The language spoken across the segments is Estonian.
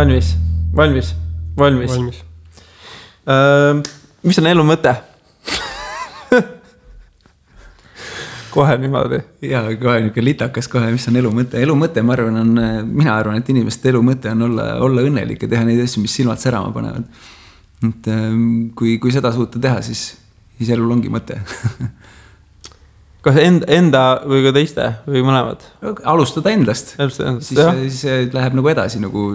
Valmis. Mis on elu mõte? Kohe niimoodi. Jaa, kohe niisugune litakas kohe, mis on elu mõte. Elu mõte, mina arvan, et inimeste elu mõte on olla õnnelik ja teha neid asju, mis silmad särama panevad. Et kui seda suuta teha, siis elul ongi mõte. Kas enda või ka teiste või mõlemad? Alustada endast. Siis läheb nagu edasi, nagu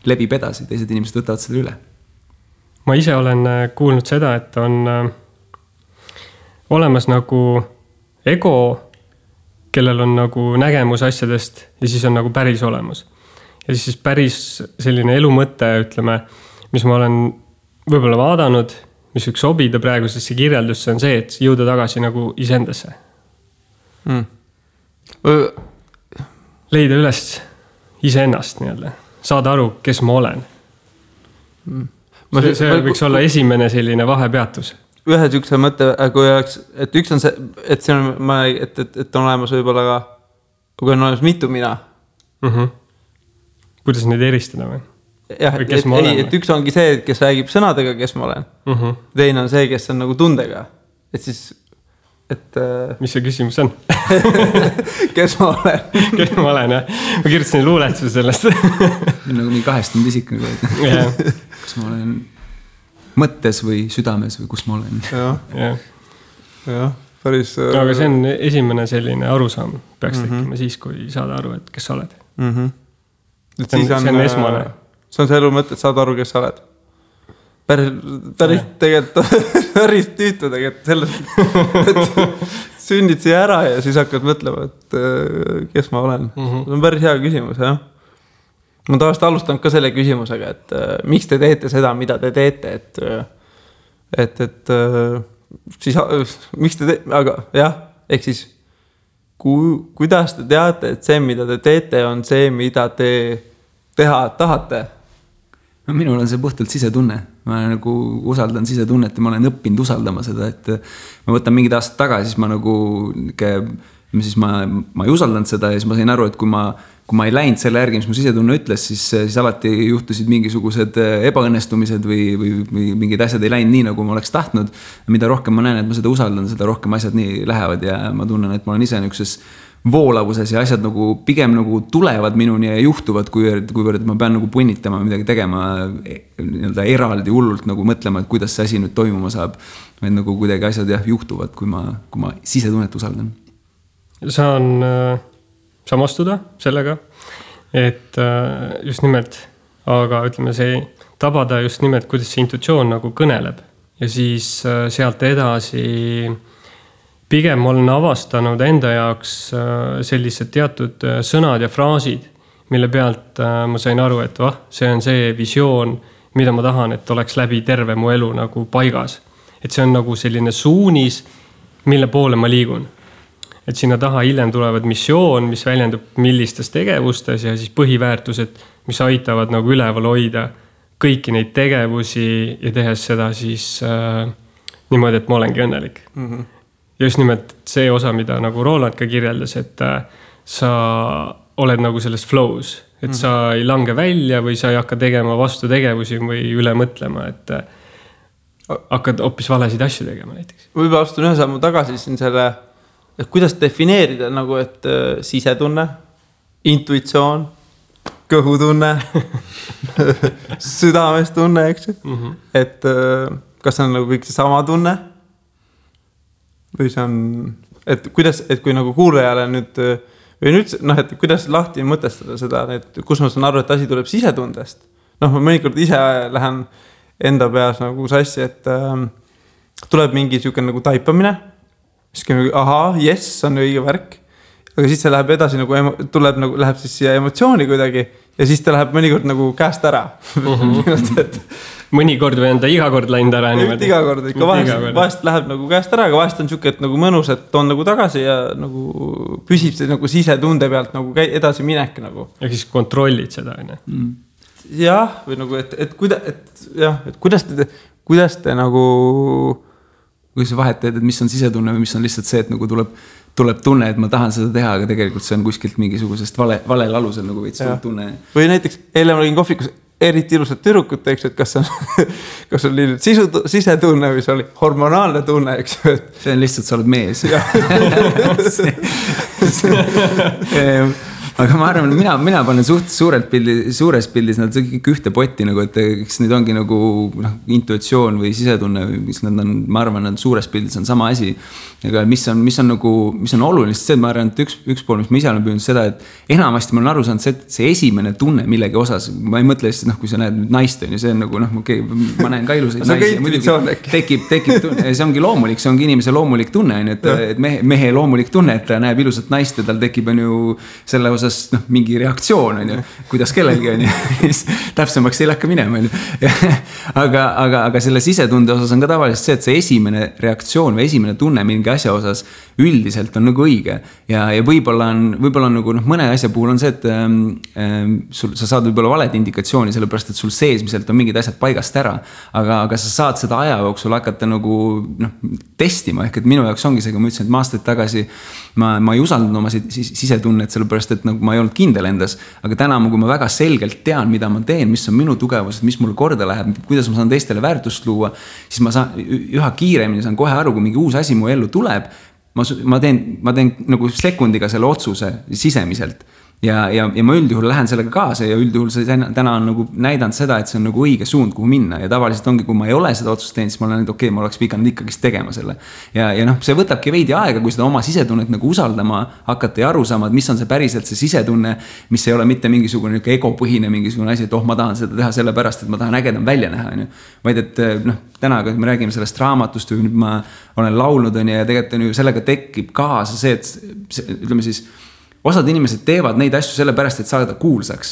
lebib edasi. Teised inimesed võtavad seda üle. Ma ise olen kuulnud seda, et on olemas nagu ego, kellel on nagu nägemus asjadest ja siis on nagu päris olemas. Ja siis päris selline elu mõte, ütleme, mis ma olen võib-olla vaadanud, mis võiks sobida praegusesse kirjeldusse, on see, et jõuda tagasi nagu iseendasse. Leida üles iseennast nii-öelda. Saada aru, kes ma olen. See võiks olla esimene selline vahepeatus. Ühe sükse mõte, kui oleks, et üks on see, et on olemas võib-olla ka, kui on olemas mitu mina. Kuidas neid eristada või? Jah, et üks ongi see, kes räägib sõnadega, kes ma olen. Teine on see, kes on nagu tundega. Et siis, mis see küsimus on? Kes ma olen? Kes ma olen, jah. Ma kirjutasin luuletuse sellest. Nagu nii kahestunud isik. Kas ma olen mõttes või südames või kus ma olen. Jah, päris... Aga see on esimene selline arusaam. Peaks tekkima siis, kui saada aru, et kes sa oled. See on esmane. See on see elu mõte, et saada aru, kes sa oled. Päris tegelikult, päris tüütu tegelikult selles, et sünnid siia ära ja siis hakkad mõtlema, et kes ma olen. See on päris hea küsimus, jah. Ma tavaliselt alustan ka selle küsimusega, et miks te teete seda, mida te teete, et siis, miks te teete, aga jah, ehk siis kuidas te teate, et see, mida te teete, on see, mida te teha tahate? No, minul on see puhtalt sisetunne. Ma nagu usaldan sisetunnet ja ma olen õppinud usaldama seda, et ma võtan mingid aastad tagasi, siis ma nagu ma ei usaldanud seda ja siis ma sain aru, et kui ma ei läinud selle järgi, mis mu sisetunne ütles, siis alati juhtusid mingisugused ebaõnnestumised või mingid asjad ei läinud nii, nagu ma oleks tahtnud. Mida rohkem ma näen, et ma seda usaldan, seda rohkem asjad nii lähevad ja ma tunnen, et ma olen ise niisuguses voolavuses ja asjad nagu pigem nagu tulevad minuni ja juhtuvad, kuivõrd ma pean nagu punnitama midagi tegema eraldi hullult nagu mõtlema, et kuidas see asi nüüd toimuma saab. Vaid nagu kuidagi asjad juhtuvad, kui ma sisetunnet usaldan. Saan samastuda sellega, et just nimelt, aga ütleme see tabada just nimelt, kuidas see intuitsioon nagu kõneleb ja siis sealt edasi pigem olen avastanud enda jaoks sellised teatud sõnad ja fraasid, mille pealt ma sain aru, et see on see visioon, mida ma tahan, et oleks läbi terve mu elu nagu paigas. Et see on nagu selline suunis, mille poole ma liigun. Et sinna taha hiljem tulevad missioon, mis väljendub millistes tegevustes ja siis põhiväärtused, mis aitavad nagu üleval hoida kõiki neid tegevusi ja tehes seda siis niimoodi, et ma olengi õnnelik. Ja just nimelt see osa, mida nagu Roland ka kirjeldas, et sa oled nagu selles flows, et sa ei lange välja või sa ei hakka tegema vastu tegevusi või üle mõtlema, et hakkad hoopis valesid asju tegema näiteks. Võib-olla astun ühe sammu tagasi siin selle, et kuidas defineerida nagu, et sisetunne, intuitsioon, kõhutunne, südamestunne, eks? Et kas on nagu kõik see sama tunne? Või see on, et kui nagu kuulajale nüüd, või nüüd, et kuidas lahti mõtestada seda, et kus ma saan aru, et asi tuleb sisetundest. Ma mõnikord ise lähen enda peas nagu sassi, et tuleb mingi siuke nagu taipamine, siis yes, on õige värk, aga siis see läheb edasi, läheb siis siia emotsiooni kuidagi ja siis ta läheb mõnikord nagu käest ära. Mõnikord või on ta iga kord läinud ära? Iga kord, ikka vahest läheb nagu käest ära, aga vahest on siuke, et nagu mõnus, et on nagu tagasi ja nagu püsib see nagu sisetunde pealt nagu edasi minek nagu. Ja siis kontrollid seda, ne? Jah, või nagu, et kuidas te nagu... Kui sa vahet teed, et mis on sisetunne või mis on lihtsalt see, et nagu tuleb tunne, et ma tahan seda teha, aga tegelikult see on kuskilt mingisugusest valel alusel nagu veits tunne. Või näiteks eile ma olin kohvikus eriti ilusat tüdrukut, eks, et kas on sisetunne või see oli hormonaalne tunne, eks. See on lihtsalt, sa oled mees. Aga ma arvan, mina panen suures pildis nad kõik ühte potti nagu, et eks need ongi nagu intuitsioon või sisetunne või mis nad on, ma arvan, nad suures pildis on sama asi. Aga mis on oluline, see, ma arvan, et üks pool, mis ma ise olen püünud seda, et enamasti ma olen aru saanud see esimene tunne millegi osas, ma ei mõtle lihtsalt, kui sa näed naist, see on nagu, okei, ma näen ka ilusaid naisi. Tekib tunne, see ongi loomulik, see ongi inimese loomulik tunne, et mehe loomulik tunne, et ta näeb ilusat naist ja tal tekib on ju selle osas mingi reaktsioon on ju, kuidas kellelgi on ju, täpsemaks ei lähka minema on ju. Aga selle sisetunde osas on ka tavaliselt see, et see esimene reaktsioon või esimene tunne mingi asja osas üldiselt on nagu õige ja võib-olla on nagu mõne asja puhul on see, et sa saad võib-olla valed indikatsiooni, sellepärast et sul seesmiselt on mingid asjad paigast ära, aga sa saad seda aja jooksul hakata nagu testima, ehk et minu jaoks ongi see, kui ma ütlesin, et ma aastaid tagasi ma ei usaldanud oma sisetunnet, sellepärast et nagu ma ei olnud kindel endas, aga täna, kui ma väga selgelt tean, mida ma teen, mis on minu tugevused, mis mulle korda läheb, kuidas ma saan teistele väärtust luua, siis ma saan üha kiiremini saan kohe aru, kui mingi uus asi mu ellu tuleb, ma teen nagu sekundiga selle otsuse sisemiselt. Ja ma üldjuhul lähen sellega kaasa ja üldjuhul see täna on nagu näidanud seda, et see on nagu õige suund, kuhu minna ja tavaliselt ongi, kui ma ei ole seda otsust teinud, siis ma olen, et okei, ma oleks pidanud ikkagi tegema selle. Ja see võtabki veidi aega, kui seda oma sisetunnet nagu usaldama hakata ja aru saama, et mis on see päriselt see sisetunne, mis ei ole mitte mingisugune egopõhine mingisugune asi, et ma tahan seda teha sellepärast, et ma tahan ägedam välja näha. Vaid et täna, kui me räägime sellest raamatust või nüüd ma olen laulnud ja tegelikult sellega tekib kaasa see, et ütleme siis osad inimesed teevad neid asju sellepärast, et saada kuulsaks.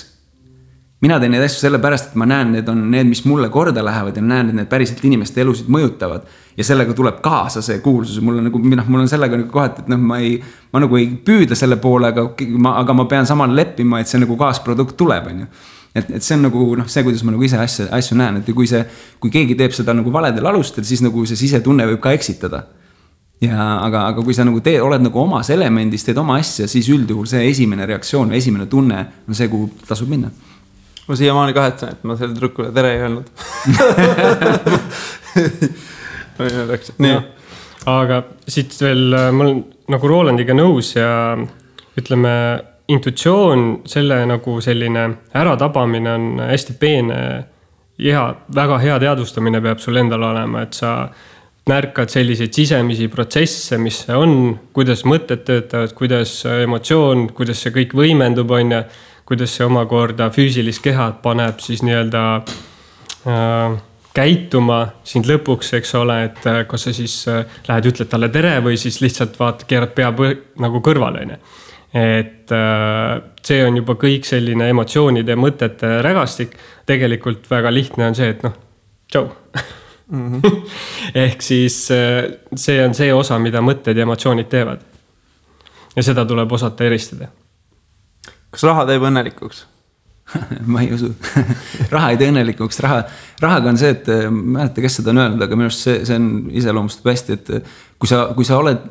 Mina teen neid asju sellepärast, et ma näen, need on need, mis mulle korda lähevad ja näen, et need päriselt inimeste elusid mõjutavad. Ja sellega tuleb kaasa see kuulsus. Mul on sellega nagu kohati, et ma nagu ei püüda selle poole, aga ma pean samal leppima, et see nagu kaasprodukt tuleb. Et see on nagu see, kuidas ma nagu ise asju näen. Et kui keegi teeb seda nagu valedel alustel, siis nagu see sisetunne võib ka eksitada. Aga kui sa nagu oled nagu omas elemendis, teed oma asja, siis üldjuhul see esimene reaktsioon või esimene tunne on see, kuhu tasub minna. Ma siiamaani kahetsen, et ma selle trükkule tere ei öelnud. Nii. Aga siit veel, ma olen nagu Rolandiga nõus ja ütleme, intuitsioon, selle nagu selline äratabamine on hästi peene ja väga hea teadvustamine peab sul endal olema, et sa märkad selliseid sisemisi protsesse, mis see on, kuidas mõtted töötavad, kuidas emotsioon, kuidas see kõik võimendub on ja kuidas see omakorda füüsilist kehad paneb siis nii-öelda käituma sind lõpuks, eks ole, et kas sa siis lähed ütled talle tere või siis lihtsalt keerad pea nagu kõrvale. Et see on juba kõik selline emotsioonide ja mõtete rägastik. Tegelikult väga lihtne on see, et tšau. Ehk siis see on see osa, mida mõtted ja emotsioonid teevad. Ja seda tuleb osata eristada. Kas raha teeb õnnelikuks? Ma ei usu. Raha ei tee õnnelikuks. Rahaga on see, et ma ei tea, kes seda on öelnud, aga minu arust see on iseloomustab hästi, et kui sa oled,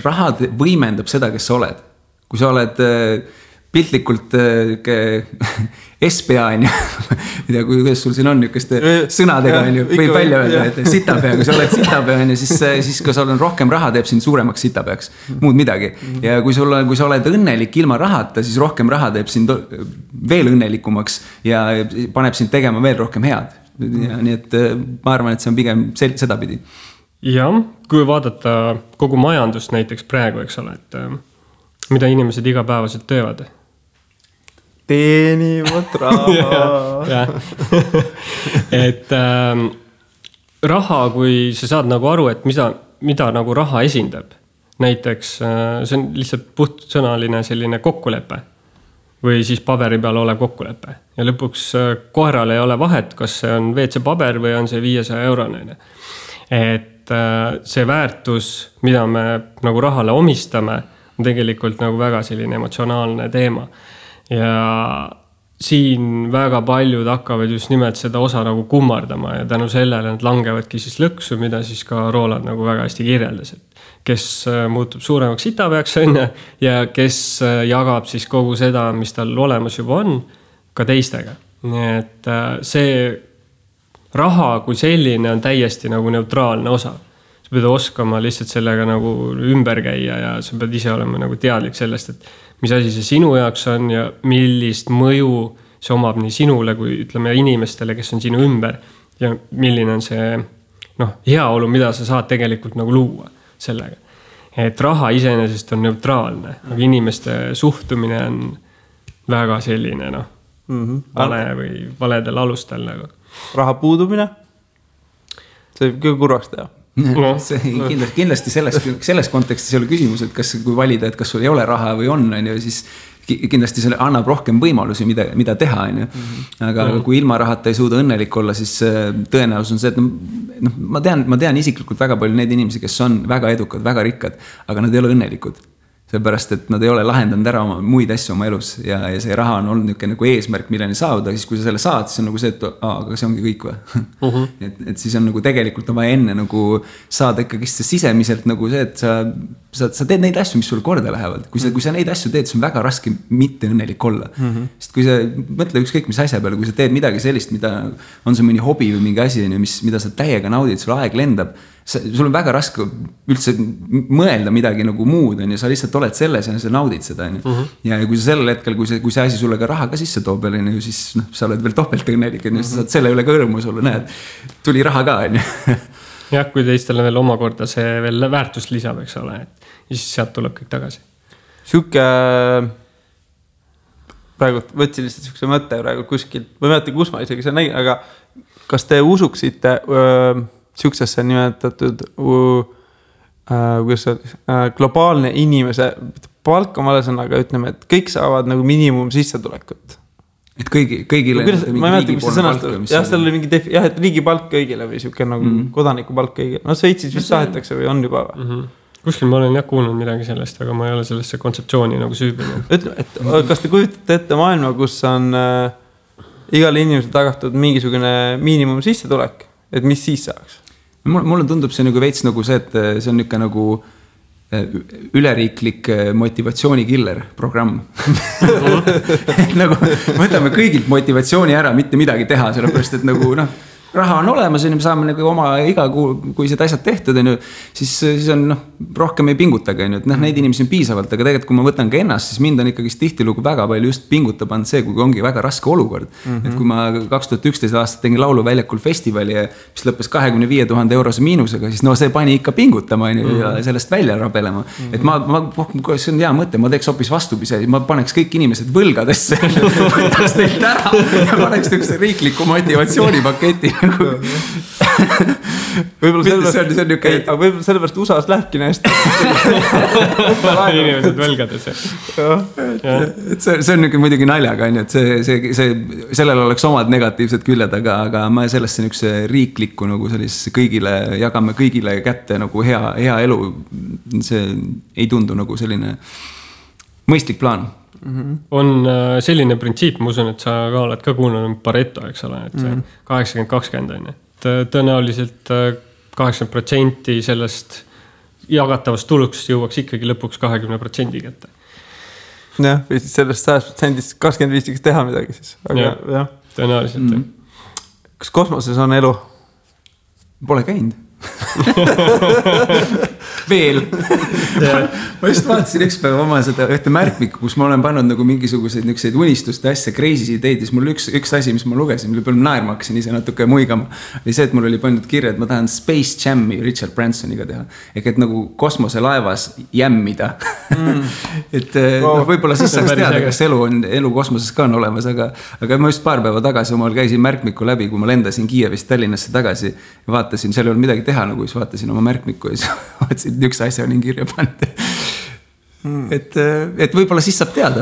raha võimendab seda, kes sa oled. Kui sa oled piltlikult SPA on ju, kuidas sul siin on niisuguste sõnadega on ju, võib välja öelda, et sitapea, kui sa oled sitapea on ju, siis kui sa oled rohkem raha, teeb sind suuremaks sitapeaks, muud midagi. Ja kui sa oled õnnelik ilma rahata, siis rohkem raha teeb sind veel õnnelikumaks ja paneb sind tegema veel rohkem head. Ja nii et ma arvan, et see on pigem sedapidi. Ja, kui vaadata kogu majandust näiteks praegu, eks ole, et mida inimesed igapäevaselt töövad? Teenivad raha. Et raha, kui sa saad nagu aru, et mida nagu raha esindab. Näiteks see on lihtsalt puhtsõnaline selline kokkulepe või siis paberi peal ole kokkulepe. Ja lõpuks koeral ei ole vahet, kas see on WC paber või on see 500 €. Et see väärtus, mida me nagu rahale omistame, on tegelikult nagu väga selline emotsionaalne teema. Ja siin väga paljud hakkavad just nimelt seda osa nagu kummardama ja tänu sellele nad langevadki siis lõksu, mida siis ka Roland nagu väga hästi kirjeldas, et kes muutub suuremaks sitapeaks õnne ja kes jagab siis kogu seda, mis tal olemas juba on, ka teistega. Nii et see raha kui selline on täiesti nagu neutraalne osa. Sa pead oskama lihtsalt sellega nagu ümber käia ja sa pead ise olema nagu teadlik sellest, et mis asi see sinu jaoks on ja millist mõju see omab nii sinule kui ütleme inimestele, kes on sinu ümber ja milline on see heaolu, mida sa saad tegelikult nagu luua sellega. Et raha iseenesest on neutraalne, aga inimeste suhtumine on väga selline vale või valedel alustel nagu. Raha puudumine? See võib küll kurvaks teha. Kindlasti selles kontekstis ei ole küsimus, et kas kui valida, et kas sul ei ole raha või on, siis kindlasti see annab rohkem võimalusi, mida teha. Aga kui ilma rahata ei suuda õnnelik olla, siis tõenäosus on see, et ma tean isiklikult väga palju neid inimesi, kes on väga edukad, väga rikkad, aga nad ei ole õnnelikud. Seepärast, et nad ei ole lahendanud ära oma muid asju oma elus ja see raha on olnud nagu eesmärk, milleni saada, siis kui sa selle saad, siis on nagu see, et aga see ongi kõik või. Et siis on nagu tegelikult on vaja enne nagu saada ikkagi sisemiselt nagu see, et sa teed neid asju, mis sulle korda lähevad. Kui sa neid asju teed, siis on väga raske mitte õnnelik olla. Sest kui sa mõtle ükskõik mis asja peale, kui sa teed midagi sellist, mida on see mõni hobi või mingi asi, mida sa täiega naudid, sul aeg lendab, sul on väga raske üldse mõelda midagi nagu muud, ja sa lihtsalt oled selles ja sa naudid seda. Ja kui sa sellel hetkel, kui see asi sulle ka raha ka sisse toob, siis sa oled veel topelt õnnelik, sa saad selle üle ka õrmus olla, näed, tuli raha ka. Jah, kui teistele veel omakorda see veel väärtust lisab, eks ole, ja siis sealt tuleb kõik tagasi. Siuke praegu võtsin lihtsalt siukse mõtte praegu kuskilt, ma ei mäleta, kus ma isegi see nägin, aga kas te usuksite siuksesse nimetatud globaalne inimese palk on vale sõnaga, ütleme, et kõik saavad nagu miinimum sissetulekut. Et kõigile ma ei mäleta, mis see sõnastab. Jah, seal oli mingi et riigi palk kõigile või siuke nagu kodaniku palk kõigile. Sveitsis vist tahetakse või on juba või? Kuskil ma olen kuulnud midagi sellest, aga ma ei ole sellesse kontseptsiooni nagu süübinud. Ütleme, et kas te kujutate ette maailma, kus on igale inimesele tagatud mingisugune miinimum sissetulek, et mis siis saaks? Mulle tundub see nagu veits nagu see, et see on niisugune nagu üleriiklik motivatsioonikiller programm. Nagu võtame kõigilt motivatsiooni ära, mitte midagi teha, sellepärast, et nagu raha on olemas ja me saame nagu oma iga kuu, kui seda asjad tehtud, siis on rohkem ei pingutage. Neid inimesi on piisavalt, aga tegelikult kui ma võtan ka ennast, siis mind on ikkagi tihtilugu väga palju just pingutab on see, kui ongi väga raske olukord. Et kui ma 2011 aastat tegin lauluväljakul festivali, mis lõppes 25 000 eurose miinusega, siis see pani ikka pingutama ja sellest välja rabelema. Et see on hea mõte, ma teeks hoopis vastupise, ma paneks kõik inimesed võlgadesse, võtaks teilt ära ja paneks tõkse riikliku motivatsioonipaketi. Võib-olla sellepärast USA-s lähebki näest inimesed võlgades. See on muidugi naljaga, et sellel oleks omad negatiivsed küljed, aga ma sellesse niisuguse riiklikku nagu sellise kõigile, jagame kõigile kätte nagu hea elu, see ei tundu nagu selline mõistlik plaan. On selline printsiip, ma usun, et sa ka oled ka kuulnud Pareto, eks ole, et 80-20 on, et tõenäoliselt 80% sellest jagatavast tulust jõuaks ikkagi lõpuks 20% kätte. Jah, või siis sellest 100% 25 võiks teha midagi siis. Aga, jah. Tõenäoliselt. Kas kosmoses on elu? Pole käinud. Veel. Ma just vaatasin üks päev oma seda ühte märkmikku, kus ma olen pannud nagu mingisuguseid niisuguseid unistuste asja, crazy ideid, siis mul üks asi, mis ma lugesin, mille peal naerma hakkasin ise natuke muigama, oli see, et mul oli pandud kirja, et ma tahan Space Jam'i Richard Bransoniga teha. Et nagu kosmoselaevas jämmida. Et võib-olla siis saaks teada, kas elu kosmoses ka on olemas, aga ma just paar päeva tagasi omal käisin märkmiku läbi, kui ma lendasin Kiievist Tallinnasse tagasi ja vaatasin, seal ei olnud midagi teha, nagu siis vaatasin oma märkmiku ja siis vaatasin, et üks asja on kirja pannud. Et võib-olla siis saab teada,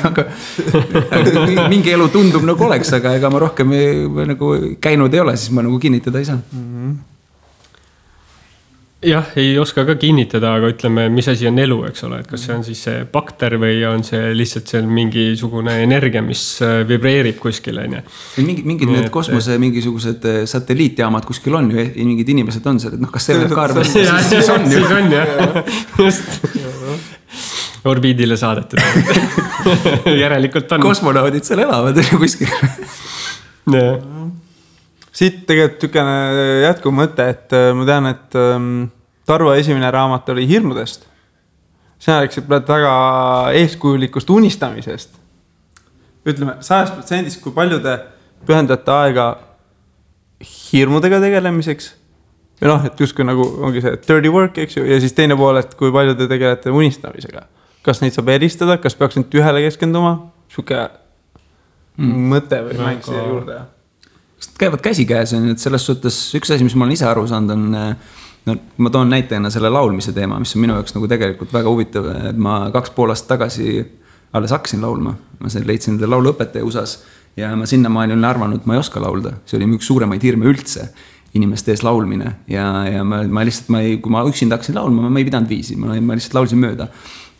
aga mingi elu tundub nagu oleks, aga ega ma rohkem nagu käinud ei ole, siis ma nagu kinnitada ei saa. jah, ei oska ka kinnitada, aga ütleme, mis asi on elu, eks ole, et kas see on siis see bakter või on see lihtsalt seal mingisugune energia, mis vibreerib kuskil, on ju. Mingid need kosmose mingisugused satelliitjaamad kuskil on ju, mingid inimesed on seal, et noh, kas see võib ka arvata, siis on ju. Siis on, jah. Just. Orbiidile saadetud. Järelikult on. Kosmonaudid seal elavad kuskil. Jah. Siit tegelikult tükene jätkuv mõte, et ma tean, et Tarvo esimene raamat oli hirmudest. Sina rääksid väga eeskujulikust unistamisest. Ütleme, 100%, kui palju te pühendate aega hirmudega tegelemiseks? Või noh, et justkui nagu ongi see dirty work, eks ju, ja siis teine pool, et kui palju te tegelete unistamisega. Kas neid saab eristada, kas peaks nüüd ühele keskenduma? Siuke mõte või mäng siia juurde? Käivad käsikäes, et selles suhtes üks asi, mis ma olen ise aru saanud, on, no, ma toon näitena selle laulmise teema, mis on minu jaoks nagu tegelikult väga huvitav, et ma 2,5 aastat tagasi alles hakkasin laulma. Ma leidsin enda lauluõpetaja USA-s ja ma sinnamaani olin arvanud, et ma ei oska laulda. See oli üks suuremaid hirme üldse, inimeste ees laulmine ja ma lihtsalt, kui ma üksinda hakkasin laulma, ma ei pidanud viisi, ma lihtsalt laulsin mööda.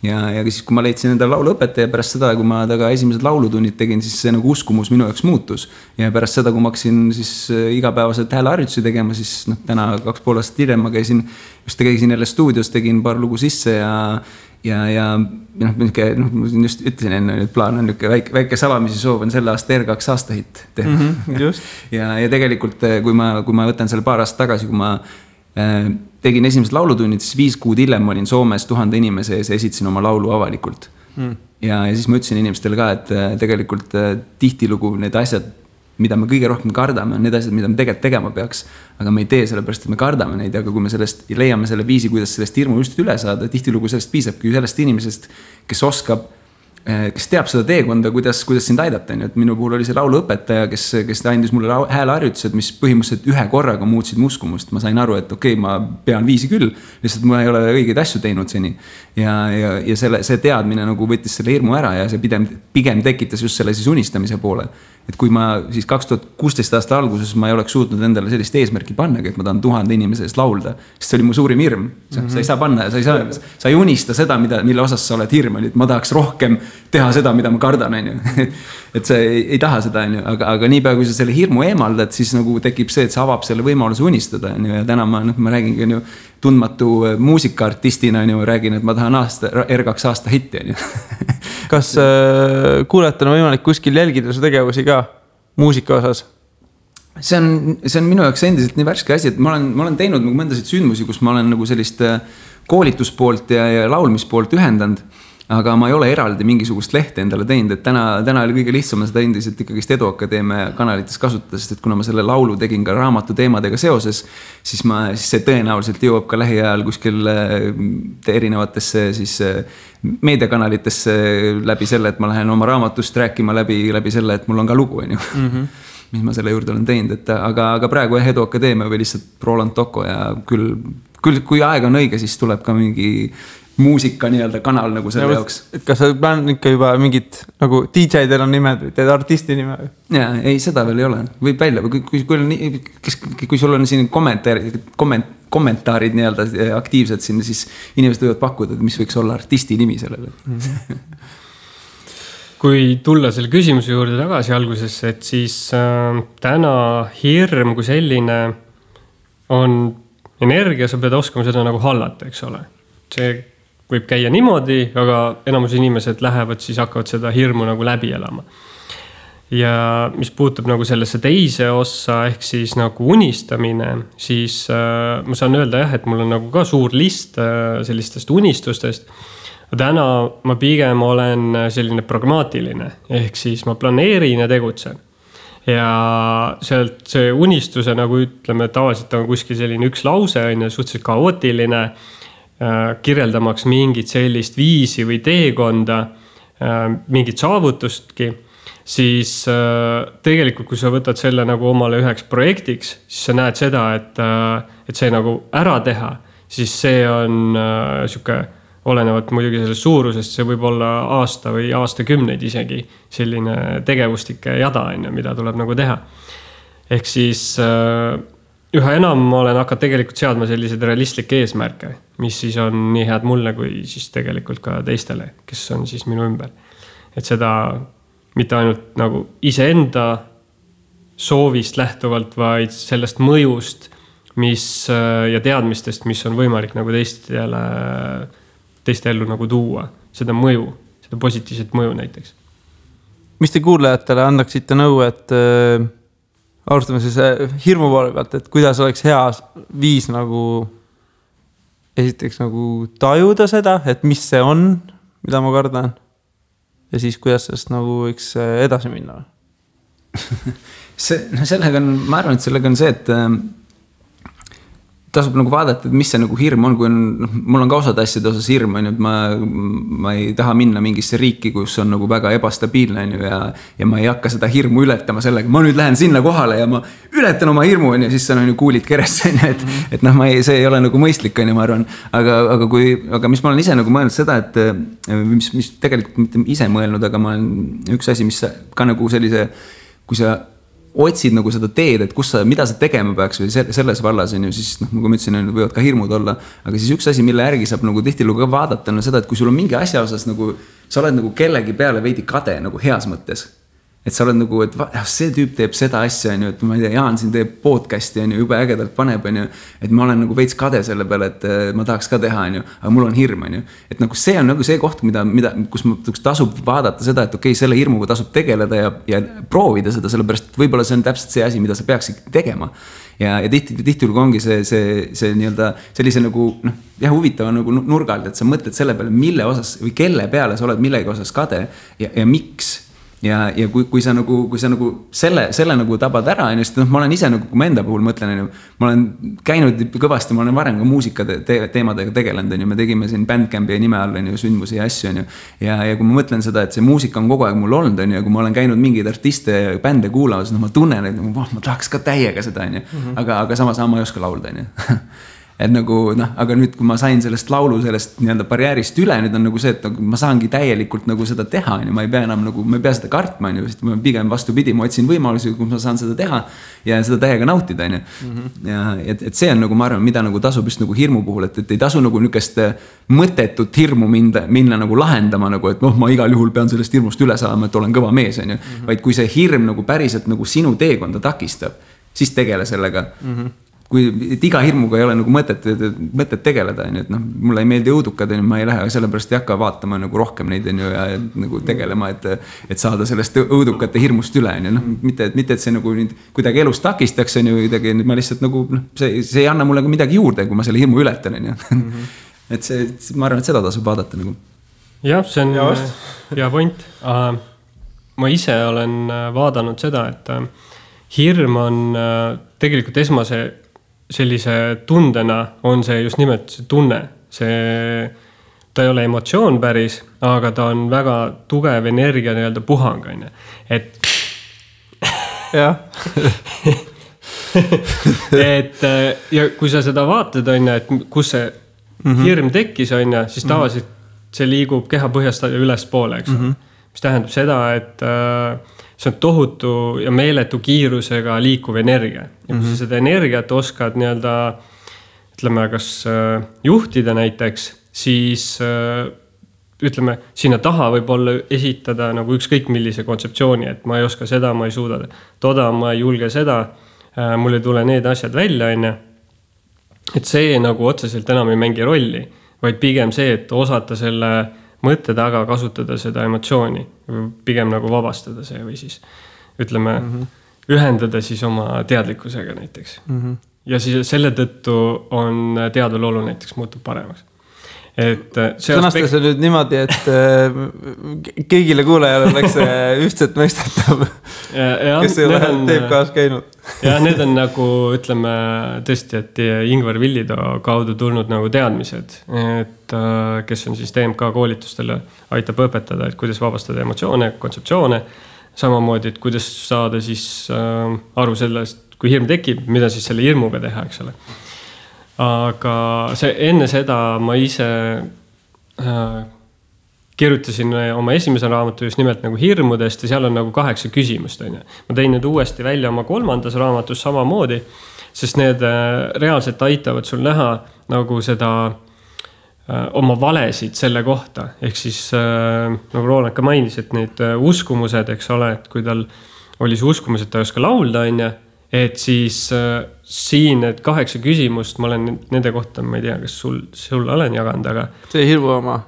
Ja siis, kui ma leidsin enda lauluõpetaja pärast seda, kui ma taga esimesed laulutunnid tegin, siis see nagu uskumus minu jaoks muutus. Ja pärast seda, kui ma hakkasin siis igapäevaselt hääleharjutusi tegema, siis täna 2,5 aastat hiljem ma käisin jälle stuudios, tegin paar lugu sisse ja just ütlesin enne, et plaan on väike salamisi soov on selle aasta R2 aastahitt teha. Just. ja tegelikult, kui ma võtan selle paar aastat tagasi, kui ma tegin esimesed laulutunnid, siis 5 kuud hiljem ma olin Soomes 1000 inimese ees ja esitasin oma laulu avalikult. Ja siis ma ütlesin inimestele ka, et tegelikult tihtilugu need asjad, mida me kõige rohkem kardame, on need asjad, mida me tegelikult tegema peaks, aga me ei tee sellepärast, et me kardame neid, aga kui me sellest leiame selle viisi, kuidas sellest hirmu just üle saada, tihtilugu sellest piisabki sellest inimesest, kes oskab, kes teab seda teekonda, kuidas sind aidata. Et minu puhul oli see lauluõpetaja, kes andis mulle hääleharjutused, mis põhimõtteliselt ühe korraga muutsid muskumust. Ma sain aru, et okei, ma pean viisi küll, lihtsalt ma ei ole õigeid asju teinud seni. Ja see teadmine nagu võttis selle hirmu ära ja see pigem tekitas just selle siis unistamise poole. Et kui ma siis 2016 aasta alguses ma ei oleks suutnud endale sellist eesmärki pannagi, et ma tahan 1000 inimese eest laulda, sest see oli mu suurim hirm. Sa ei saa panna, sa ei unista seda, mille osas sa oled hirm, et ma tahaks rohkem teha seda, mida ma kardan, et sa ei taha seda, aga niipea, kui sa selle hirmu eemaldad, siis nagu tekib see, et sa avab selle võimaluse unistada, ja täna ma räägin tundmatu muusikaartistina, räägin, et ma tahan R2 aasta hitti. Kas kuulajatena on võimalik kuskil jälgida su tegevusi ka muusika osas? See on minu jaoks endiselt nii värske asi, et ma olen teinud nagu mõndasid sündmusi, kus ma olen nagu sellist koolituspoolt ja laulmispoolt ühendanud, aga ma ei ole eraldi mingisugust lehte endale teinud, et täna oli kõige lihtsam seda endiselt ikkagist Edu Akadeemia kanalites kasutada, sest et kuna ma selle laulu tegin ka raamatu teemadega seoses, siis see tõenäoliselt jõuab ka lähiajal kuskil erinevatesse siis meediakanalitesse läbi selle, et ma lähen oma raamatust rääkima läbi selle, et mul on ka lugu, mis ma selle juurde olen teinud, aga praegu Edu Akadeemia või lihtsalt Roland Toko ja küll kui aeg on õige, siis tuleb ka mingi muusika nii-öelda kanal nagu selle jaoks. Et kas sa plään ikka juba mingid nagu DJ-del on nimed või teed artisti nime? Jaa, ei, seda veel ei ole. Võib välja, kui sul on siin kommentaarid nii-öelda aktiivsed siin, siis inimesed võivad pakkuda, mis võiks olla artisti nimi sellele. Kui tulla selle küsimuse juurde tagasi algusesse, et siis täna hirm kui selline on energia, sa pead oskama seda nagu hallata, eks ole. See võib käia niimoodi, aga enamus inimesed lähevad, siis hakkavad seda hirmu nagu läbi elama. Ja mis puutub nagu sellesse teise ossa, ehk siis nagu unistamine, siis ma saan öelda jah, et mul on nagu ka suur list sellistest unistustest. Täna ma pigem olen selline pragmaatiline, ehk siis ma planeerin ja tegutsen. Ja sealt see unistuse nagu ütleme, tavaliselt on kuskil selline üks lause, on suhteliselt kaootiline, kirjeldamaks mingit sellist viisi või teekonda, mingit saavutustki, siis tegelikult, kui sa võtad selle nagu omale üheks projektiks, siis sa näed seda, et see nagu ära teha, siis see on siuke olenevat muidugi sellest suurusest, see võib olla aasta või aastakümneid isegi selline tegevustike jada, mida tuleb nagu teha. Ehk siis üha enam ma olen hakanud tegelikult seadma selliseid realistlikke eesmärke, mis siis on nii head mulle kui siis tegelikult ka teistele, kes on siis minu ümber. Et seda mitte ainult nagu iseenda soovist lähtuvalt, vaid sellest mõjust, mis ja teadmistest, mis on võimalik nagu teiste ellu nagu tuua. Seda mõju, seda positiivset mõju näiteks. Mis te kuulajatele annaksite nõu, et alustame siis hirmu poole pealt, et kuidas oleks hea viis nagu esiteks nagu tajuda seda, et mis see on, mida ma kardan ja siis kuidas sellest nagu võiks edasi minna? Sellega on, ma arvan, et sellega on see, et tasub nagu vaadata, et mis see nagu hirm on, kui on, mul on ka osad asjade osas hirm, et ma ei taha minna mingisse riiki, kus on nagu väga ebastabiilne ja ma ei hakka seda hirmu ületama sellega, ma nüüd lähen sinna kohale ja ma ületan oma hirmu ja siis on ju kuulid keresse, et noh, see ei ole nagu mõistlik, ma arvan, aga mis ma olen ise nagu mõelnud seda, et mis tegelikult mitte ise mõelnud, aga ma olen üks asi, mis ka nagu sellise, kui sa otsid nagu seda teed, et mida sa tegema peaks või selles vallas on ju, siis nagu ma ütlesin, võivad ka hirmud olla, aga siis üks asi, mille järgi saab nagu tihtilugu ka vaadata, on seda, et kui sul on mingi asja osas nagu, sa oled nagu kellegi peale veidi kade nagu heas mõttes. Et sa oled nagu, et see tüüp teeb seda asja, et ma ei tea, Jaan siin teeb podcasti, jube ägedalt paneb, et ma olen nagu veits kade selle peale, et ma tahaks ka teha, aga mul on hirm, et nagu see on nagu see koht, kus tasub vaadata seda, et okei, selle hirmuga tasub tegeleda ja proovida seda, sellepärast, et võib-olla see on täpselt see asi, mida sa peaksid tegema. Ja tihtilugu ongi see nii-öelda sellise nagu, huvitava nagu nurgalt, et sa mõtled selle peale, mille osas või kelle peale sa oled millegi osas kade ja miks. Ja kui sa nagu selle nagu tabad ära, sest ma olen ise nagu, kui ma enda puhul mõtlen, ma olen käinud kõvasti, ma olen varem ka muusika teemadega tegelenud, me tegime siin Bandcampi nime all sündmusi ja asju, ja kui ma mõtlen seda, et see muusika on kogu aeg mul olnud, ja kui ma olen käinud mingeid artiste ja bände kuulamas, ma tunnen, et ma tahaks ka täiega seda, aga samas ma ei oska laulda, et nagu, aga nüüd, kui ma sain sellest laulu, sellest nii-öelda barjäärist üle, nüüd on nagu see, et ma saangi täielikult nagu seda teha, ma ei pea enam nagu, ma ei pea seda kartma, sest ma pigem vastupidi, ma otsin võimalusi, kui ma saan seda teha ja seda täiega nautida, ja et see on nagu, ma arvan, mida nagu tasub just nagu hirmu puhul, et ei tasu nagu nükest mõttetut hirmu minna nagu lahendama, nagu, et ma igal juhul pean sellest hirmust üle saama, et olen kõva mees, vaid kui see hirm nagu päriselt nagu sinu teekonda takistab, siis tegele sellega. Kui iga hirmuga ei ole nagu mõtet tegeleda, et mulle ei meeldi õudukad, ma ei lähe sellepärast ei hakka vaatama nagu rohkem neid ja nagu tegelema, et saada sellest õudukate hirmust üle, mitte et see nagu kuidagi elus takistaks, ma lihtsalt nagu, see ei anna mulle midagi juurde, kui ma selle hirmu ületan, et see, ma arvan, et seda tasub vaadata nagu. Jah, see on hea point. Ma ise olen vaadanud seda, et hirm on tegelikult esmase sellise tundena on see just nimelt see tunne. Ta ei ole emotsioon päris, aga ta on väga tugev energia nii-öelda puhang. Et jah. et ja kui sa seda vaatad, et kus see hirm tekkis, siis tavaliselt see liigub keha põhjast üles poole, eks. Mis tähendab seda, et see on tohutu ja meeletu kiirusega liikuv energia. Ja kui sa seda energiat oskad nii-öelda, ütleme, kas juhtida näiteks, siis ütleme, sinna taha võib olla esitada nagu ükskõik millise kontseptsiooni, et ma ei oska seda, ma ei suuda toda, ma ei julge seda, mul ei tule need asjad välja, et see nagu otseselt enam ei mängi rolli, vaid pigem see, et osata selle mõtte taga kasutada seda emotsiooni, pigem nagu vabastada see või siis ütleme, ühendada siis oma teadlikkusega näiteks. Ja siis selle tõttu on teadvalolu näiteks muutub paremaks. Sõnasta see nüüd niimoodi, et kõigile kuulajale oleks ühtset mõistetav, kes ei ole teeb kaas käinud. Ja need on nagu, ütleme tõesti, et Ingvar Villido kaudu tulnud nagu teadmised, et kes on siis TMK koolitustele aitab õpetada, et kuidas vabastada emotsioone, kontseptsioone, samamoodi, et kuidas saada siis aru sellest, kui hirm tekib, mida siis selle hirmuga teha, eks ole. Aga enne seda ma ise kirjutasin oma esimese raamatu just nimelt nagu hirmudest ja seal on nagu 8 küsimust. Ma tein nüüd uuesti välja oma 3. raamatus samamoodi, sest need reaalselt aitavad sul näha nagu seda oma valesid selle kohta. Ehk siis nagu Roland ka mainis, et need uskumused, eks ole, et kui tal oli see uskumus, et ta ei oska laulda, et siis siin need 8 küsimust, ma olen nende kohta, ma ei tea, kas sul olen jaganud, aga... See hirmu oma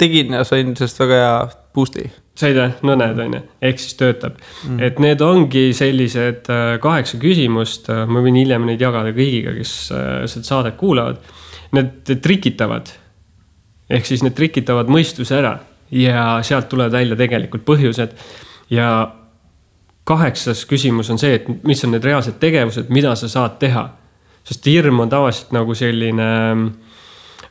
tegin ja sain sellest väga hea boost'i. Said nõned, ehk siis töötab. Et need ongi sellised 8 küsimust, ma võin hiljem neid jagada kõigiga, kes seda saadet kuulavad. Need trikitavad, ehk siis need trikitavad mõistuse ära ja sealt tulevad välja tegelikult põhjused. Ja 8. küsimus on see, et mis on need reaalsed tegevused, mida sa saad teha. Sest hirm on tavaliselt nagu selline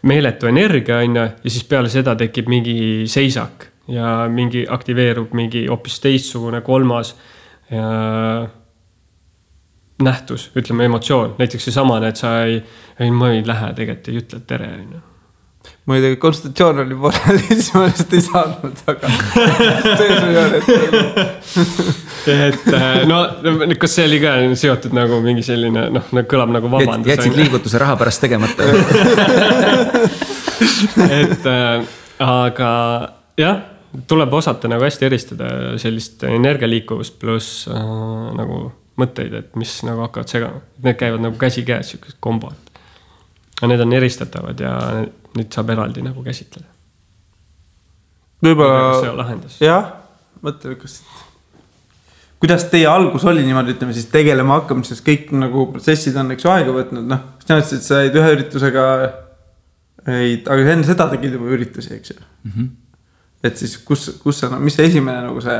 meeletu energia ja siis peale seda tekib mingi seisak ja mingi aktiveerub mingi hoopis teistsugune 3. nähtus, ütleme emotsioon. Näiteks see samane, et ma ei lähe tegelikult ei ütle tere. Ma ei tea, konsultatsioon oli pooleli, siis ma lihtsalt ei saanud, aga et no, kas see oli ka seotud nagu mingi selline, kõlab nagu vabandus. Jätsid liigutuse raha pärast tegemata. et aga jah, tuleb osata nagu hästi eristada sellist energialiikuvust pluss nagu mõtteid, et mis nagu hakkavad segama. Need käivad nagu käsi käes, sellised kombod. Ja need on eristatavad ja nüüd saab eraldi nagu käsitleda. Võib-olla... See on lahendus. Jah, mõtle, kuidas teie algus oli niimoodi, ütleme siis tegelema hakkamises, kõik nagu protsessid on eks aega võtnud, siis näetud, et sa jäid ühe üritusega, aga enne seda tegid juba üritusi, eks ju. Et siis kus sa, mis see esimene nagu see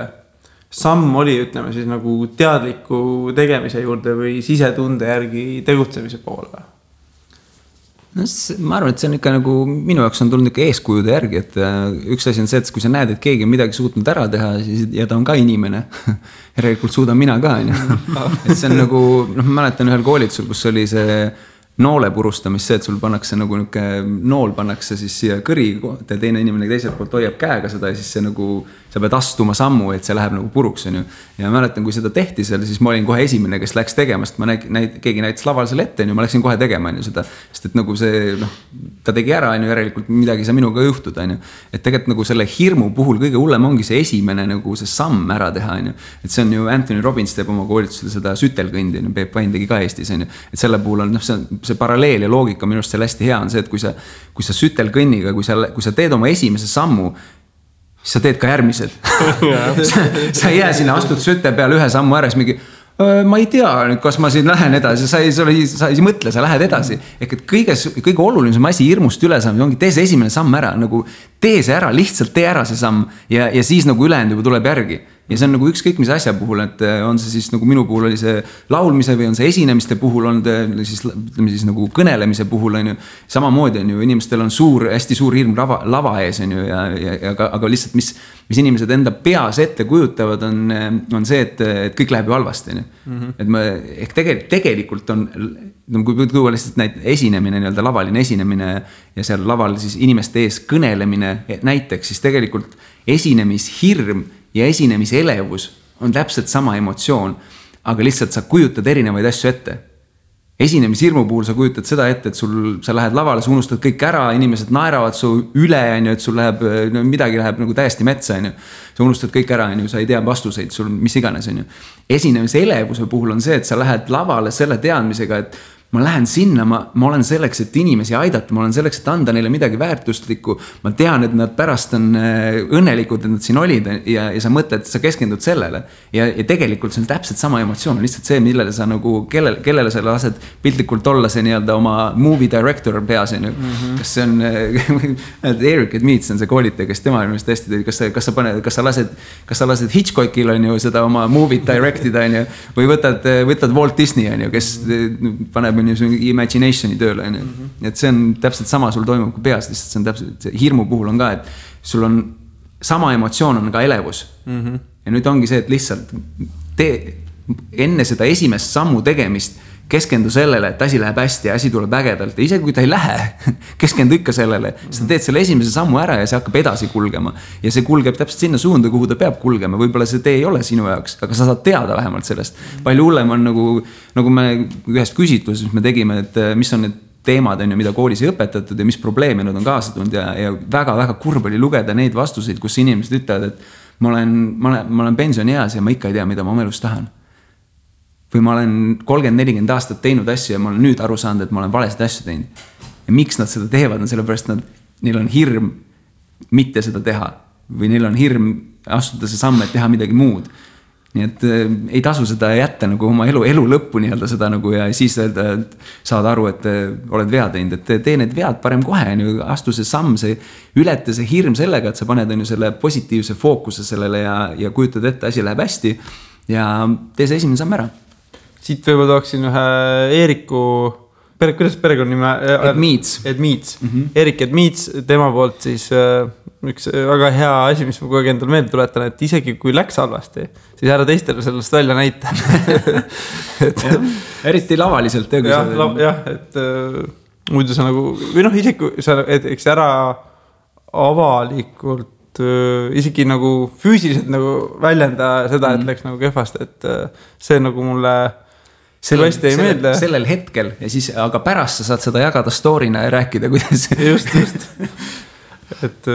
samm oli, ütleme siis nagu teadliku tegemise juurde või sisetunde järgi tegutsemise poole? No, ma arvan, et see on ikka nagu minu jaoks on tulnud ikka eeskujude järgi, et üks asi on see, et kui sa näed, et keegi on midagi suutnud ära teha ja ta on ka inimene, järelikult suudan mina ka. Et see on nagu, ma mäletan ühel koolitusel, kus oli see noole purustamis, see, et sul pannakse nagu nool pannakse siis siia kõri ja teine inimene teiselt poolt hoiab käega seda ja siis see nagu, sa pead astuma sammu, et see läheb nagu puruks. Ja mäletan, kui seda tehti seal, siis ma olin kohe esimene, kes läks tegema, sest keegi näitas laval selle ette, ma läksin kohe tegema seda, sest et nagu see, ta tegi ära, järelikult midagi sa minuga juhtud. Et tegelikult nagu selle hirmu puhul kõige hullem ongi see esimene nagu see samm ära teha. Et see on ju Anthony Robbins teeb oma koolitusel seda sütelkõndi, Peep Vain tegi ka Eestis. Et selle puhul on see paralleel ja loogika minu arust seal hästi hea on see, et kui sa sütelkõnniga, kui sa teed oma esimese sammu, siis sa teed ka järgmised. sa ei jää sinna, astud süte peale ühe sammu ära, siis mingi, ma ei tea, kas ma siin lähen edasi, sa ei mõtle, sa lähed edasi. Ehk et kõige olulisem asi hirmust üle saamine ongi, tee see esimene samm ära, nagu tee see ära, lihtsalt tee ära see samm ja siis nagu ülejäänud juba tuleb järgi. Ja see on nagu ükskõik mis asja puhul, et on see siis nagu minu puhul oli see laulmise või on see esinemiste puhul, on siis nagu kõnelemise puhul, samamoodi on ju, inimestel on hästi suur hirm lava ees, on ju, aga lihtsalt mis inimesed enda peas ette kujutavad, on see, et kõik läheb ju halvasti. Et tegelikult on, kui tuua lihtsalt näit esinemine, lavaline esinemine ja seal laval siis inimeste ees kõnelemine näiteks, siis tegelikult esinemishirm ja esinemise elevus on täpselt sama emotsioon, aga lihtsalt sa kujutad erinevaid asju ette. Esinemishirmu puhul sa kujutad seda ette, et sa lähed lavale, sa unustad kõik ära, inimesed naeravad su üle, et sul midagi läheb nagu täiesti metsa. Sa unustad kõik ära, sa ei tea vastuseid, sul mis iganes. Esinemise elevuse puhul on see, et sa lähed lavale selle teadmisega, et ma lähen sinna, ma olen selleks, et inimesi aidata, ma olen selleks, et anda neile midagi väärtustlikku. Ma tean, et nad pärast on õnnelikud, et nad siin olid ja sa mõtled, et sa keskendud sellele. Ja tegelikult see on täpselt sama emotsioon, lihtsalt see, millele sa nagu, kellele sa lased piltlikult olla see nii-öelda oma movie director peas. Kas see on, Eric Edmeets on see koolitaja, kes tema ilmest hästi, kas sa lased Hitchcockil on ju seda oma movie directida või võtad Walt Disney on ju, kes paneb imaginationi tööle. Et see on täpselt sama sul toimub kui peas, lihtsalt see on täpselt, hirmu puhul on ka, et sul on sama emotsioon on ka elevus. Ja nüüd ongi see, et lihtsalt enne seda esimest sammu tegemist keskendu sellele, et asi läheb hästi ja asi tuleb ägedalt ja isegi kui ta ei lähe, keskendu ikka sellele, siis ta teed selle esimese sammu ära ja see hakkab edasi kulgema. Ja see kulgeb täpselt sinna suunda, kuhu ta peab kulgema, võib-olla see tee ei ole sinu jaoks, aga sa saad teada vähemalt sellest. Palju hullem on nagu me ühest küsitluses me tegime, et mis on need teemad, mida koolis ei õpetatud ja mis probleeme nad on kaasa tulnud ja väga-väga kurb oli lugeda neid vastuseid, kus inimesed ütlevad, et ma olen pensionieas ja ma ikka ei tea, mida ma oma elus tahan. Või ma olen 30-40 aastat teinud asju ja ma olen nüüd aru saanud, et ma olen valesid asju teinud. Ja miks nad seda teevad, on sellepärast, neil on hirm mitte seda teha. Või neil on hirm astuda see samm, et teha midagi muud. Nii et ei tasu seda jätta nagu oma elu lõppu nii-öelda seda nagu ja siis öelda, et saad aru, et oled vea teinud, et tee need vead parem kohe, astu see samm, see ületa see hirm sellega, et sa paned selle positiivse fookuse sellele ja kujutad ette, asi läheb hästi ja tee see esimene samm ära. Siit võib-olla tooksin ühe Eeriku, kuidas perekonnanime? Edmeets. Erik Edmeets, tema poolt siis üks väga hea asi, mis ma kogu aeg endale meelde tuletan, et isegi kui läks halvasti, siis ära teistele sellest välja näita. Eriti lavaliselt. Jah, et muidu sa nagu, või isegi kui sa eks ära avalikult isegi nagu füüsiliselt nagu väljenda seda, et läks nagu kehvasti, et see nagu mulle sellel hetkel ja siis, aga pärast sa saad seda jagada story'na ja rääkida, kuidas just. Et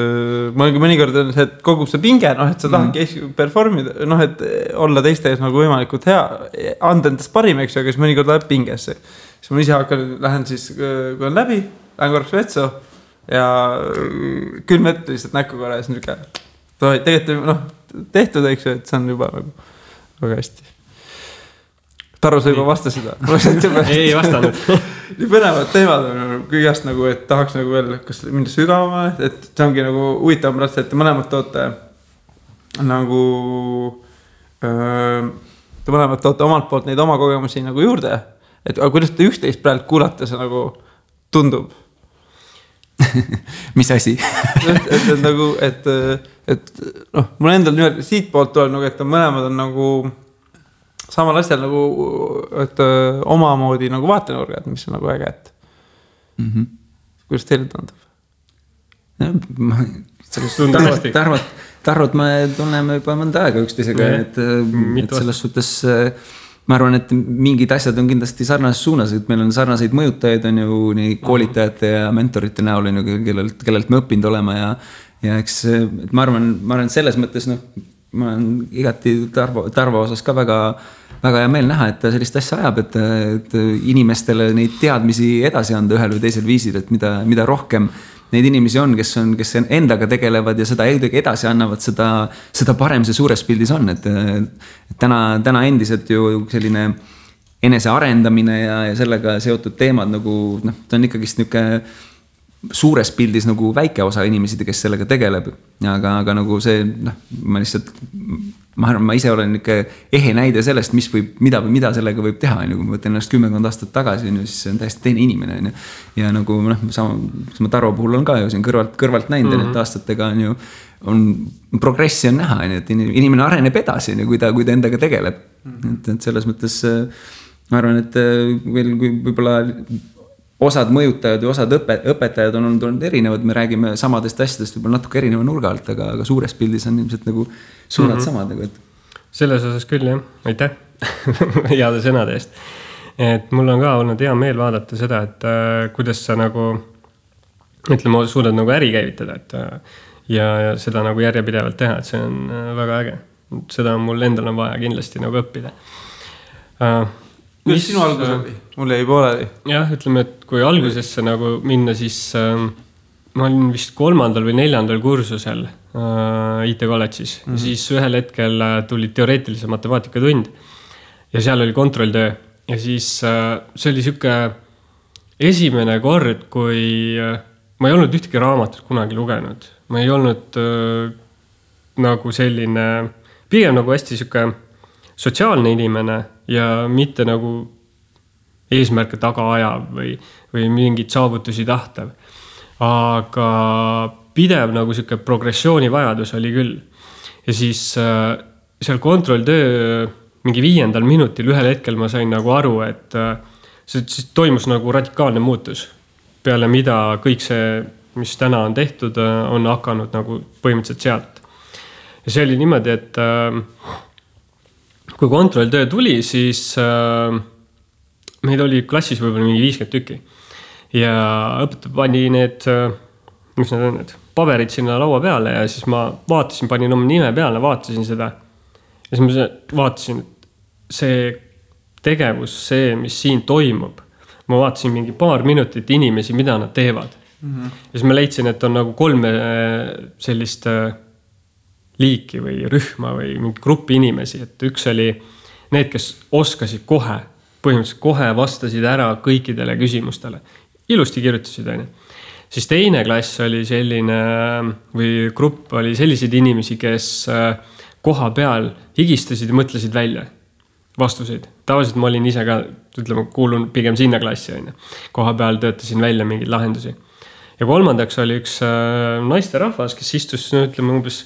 mõnikord on see, et kogub see pinge, et sa tahadki performida, et olla teiste ees nagu võimalikult hea, anda endast parim, eks ju, aga siis mõnikord läheb pingesse. Siis ma ise lähen siis, kui on läbi, lähen korraks vetsu ja külm ette lihtsalt näkku korra ja siis tegelikult tehtud, eks ju, et see on juba nagu väga hästi. Tarro, sa juba vasta seda. Ei vastanud. Nii põnevad teemad on kõigest nagu, et tahaks nagu veel kas minna sügavama, et see ongi nagu huvitav pärast, et te mõlemad toote nagu te mõlemad toote omalt poolt neid oma kogemusi nagu juurde, et aga kuidas te üksteist praegu kuulata see nagu tundub? Mis asi? et nagu, et mul endal nüüd siit poolt tuleb nagu, et mõlemad on nagu samal asjal nagu, et omamoodi nagu vaatenurgad, mis on nagu äge, et kuidas teile tundub? Tarvot me tunneme juba mõnda aega üksteisega, et selles suhtes ma arvan, et mingid asjad on kindlasti sarnases suunas, et meil on sarnaseid mõjutajaid on ju nii koolitajate ja mentorite näol, kellelt me õppinud olema ja eks ma arvan selles mõttes, ma olen igati Tarvo osas ka väga hea meel näha, et ta sellist asja ajab, et inimestele neid teadmisi edasi anda ühel või teisel viisil, et mida rohkem neid inimesi on, kes endaga tegelevad ja seda edasi annavad, seda parem see suures pildis on, et täna endiselt ju selline enesearendamine ja sellega seotud teemad nagu, ta on ikkagist niisugune suures pildis nagu väike osa inimesi, kes sellega tegeleb, aga nagu see, ma arvan, ma ise olen ikka ehe näide sellest, mida sellega võib teha, kui ma võtan ennast 10 aastat tagasi, siis see on täiesti teine inimene. Ja nagu sama Tarvo puhul on ka ju siin kõrvalt näinud, et aastatega on progressi on näha, et inimene areneb edasi, kui ta endaga tegeleb. Et selles mõttes ma arvan, et veel kui võib-olla osad mõjutajad ja osad õpetajad on olnud erinevad, me räägime samadest asjadest võib-olla natuke erineva nurga alt, aga suures pildis on ilmselt nagu suunad samad. Selles osas küll, jah. Aitäh heade sõnade eest. Et mul on ka olnud hea meel vaadata seda, et kuidas sa nagu, ütleme, suudad nagu äri käivitada, ja seda nagu järjepidevalt teha, et see on väga äge. Seda on mul endal on vaja kindlasti nagu õppida. Kuidas sinu algus oli? Mul jäi pooleli. Jah, ütleme, et kui algusesse nagu minna, siis ma olin vist 3. või 4. kursusel IT kolledžis. Siis ühel hetkel tuli teoreetilise matemaatika tund ja seal oli kontrolltöö. Ja siis see oli siuke esimene kord, kui ma ei olnud ühtegi raamatut kunagi lugenud. Ma ei olnud nagu selline, pigem nagu hästi siuke sotsiaalne inimene ja mitte nagu eesmärke taga ajav või mingid saavutusi tahtav. Aga pidev nagu siuke progressiooni vajadus oli küll. Ja siis seal kontrolltöö mingi 5. minutil ühel hetkel ma sain nagu aru, et siis toimus nagu radikaalne muutus. Peale mida kõik see, mis täna on tehtud, on hakanud nagu põhimõtteliselt sealt. Ja see oli niimoodi, et kui kontrolltöö tuli, siis meid oli klassis võib-olla mingi 50 tükki. Ja õpetaja pani need, mis need on, need paberid sinna laua peale ja siis ma vaatasin, panin oma nime peale, vaatasin seda. Ja siis ma vaatasin, et see tegevus, see, mis siin toimub, ma vaatasin mingi paar minutit inimesi, mida nad teevad. Ja siis ma leidsin, et on nagu 3 sellist liiki või rühma või mingi gruppi inimesi. Et üks oli need, kes oskasid kohe, põhimõtteliselt kohe vastasid ära kõikidele küsimustele. Ilusti kirjutasid, aine. Siis teine klass oli selline, või grupp oli selliseid inimesi, kes koha peal higistasid ja mõtlesid välja vastuseid. Tavaliselt ma olin ise ka, ütleme, kuulun pigem sinna klassi, aine. Koha peal töötasin välja mingeid lahendusi. Ja kolmandaks oli üks naiste rahvas, kes istus, ütleme, umbes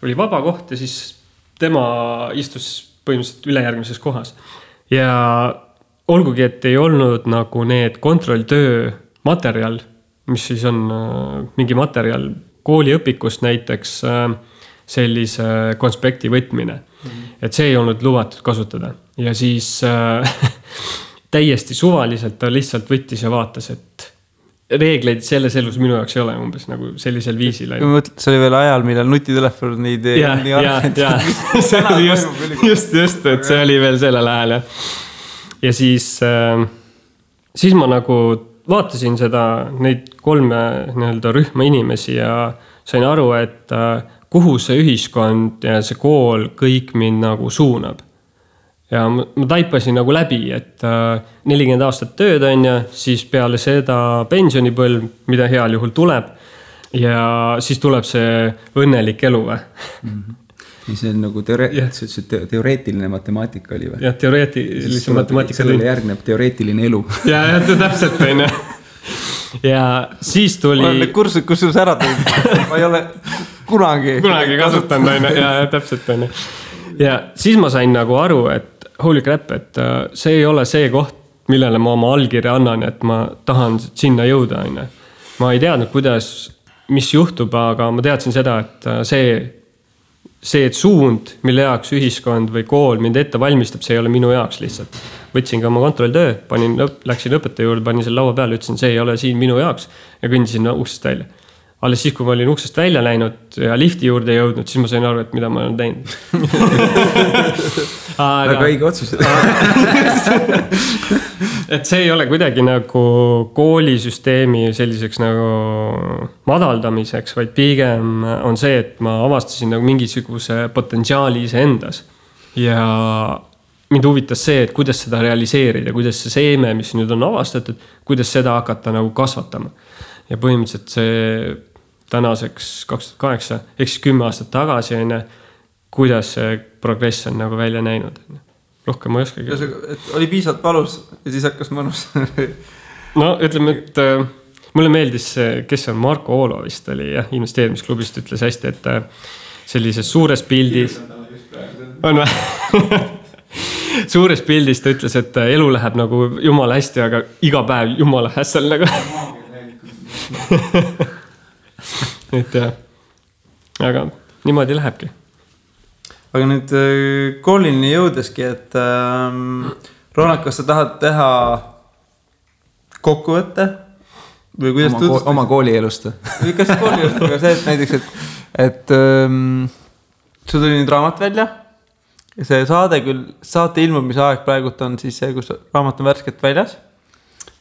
oli vaba koht ja siis tema istus põhimõtteliselt ülejärgmises kohas. Ja olgugi, et ei olnud nagu need kontrolltöö materjal, mis siis on mingi materjal kooliõpikust näiteks sellise konspekti võtmine. Et see ei olnud lubatud kasutada. Ja siis täiesti suvaliselt ta lihtsalt võttis ja vaatas, et reegleid selles elus minu jaoks ei ole umbes nagu sellisel viisil. See oli veel ajal, millal nutitelefonid ja. See oli just, et see oli veel selle lähel. Ja siis ma nagu vaatasin seda, neid 3 nii-öelda rühma inimesi ja sain aru, et kuhu see ühiskond ja see kool kõik mind nagu suunab. Ja ma taipasin nagu läbi, et 40 aastat tööd on ja siis peale seda pensionipõlv, mida heal juhul tuleb ja siis tuleb see õnnelik elu või? See on nagu teoreetiline matemaatika oli või? Jah, teoreetilise matemaatika. Sellele järgneb teoreetiline elu. Ja täpselt on. Ja siis tuli... Ma olen kursus, kus sul ära tuli. Ma ei ole kunagi kasutanud. Ja täpselt on. Ja siis ma sain nagu aru, et holy crap, et see ei ole see koht, millele ma oma allkirja annan, et ma tahan sinna jõuda. Ma ei teadnud, mis juhtub, aga ma teadsin seda, et see suund, mille jaoks ühiskond või kool mind ette valmistab, see ei ole minu jaoks lihtsalt. Võtsin ka oma kontrolltöö, läksin õpetaja juurde, panin selle laua peale, ütlesin, see ei ole siin minu jaoks ja kõndisin uksest välja. Alles siis, kui ma olin uksest välja läinud ja lifti juurde jõudnud, siis ma sain aru, et mida ma olen teinud. Väga õige otsus. Et see ei ole kuidagi nagu koolisüsteemi selliseks nagu madaldamiseks, vaid pigem on see, et ma avastasin nagu mingisuguse potentsiaali ise endas. Ja mind huvitas see, et kuidas seda realiseerida, kuidas see seeme, mis nüüd on avastatud, kuidas seda hakata nagu kasvatama. Ja põhimõtteliselt see tänaseks 2008, ehk siis 10 aastat tagasi, kuidas see progress on nagu välja näinud. Rohkem ma ei oskagi. Et oli piisavalt valus ja siis hakkas mõnus. No ütleme, et mulle meeldis, kes on Marko Oolo vist oli investeerimisklubist, ütles hästi, et sellises suures pildis on või? Suures pildis ta ütles, et elu läheb nagu jumala hästi, aga iga päev jumala hässel nagu. Et jah, aga niimoodi lähebki. Aga nüüd koolini jõudeski, et Ronald, kas sa tahad teha kokkuvõtte? Või kuidas oma koolielust? Kas koolielust, aga see, et näiteks, et sul tuli nüüd raamat välja. See saate ilmumise aeg praegult on siis see, kus raamat on värskelt väljas.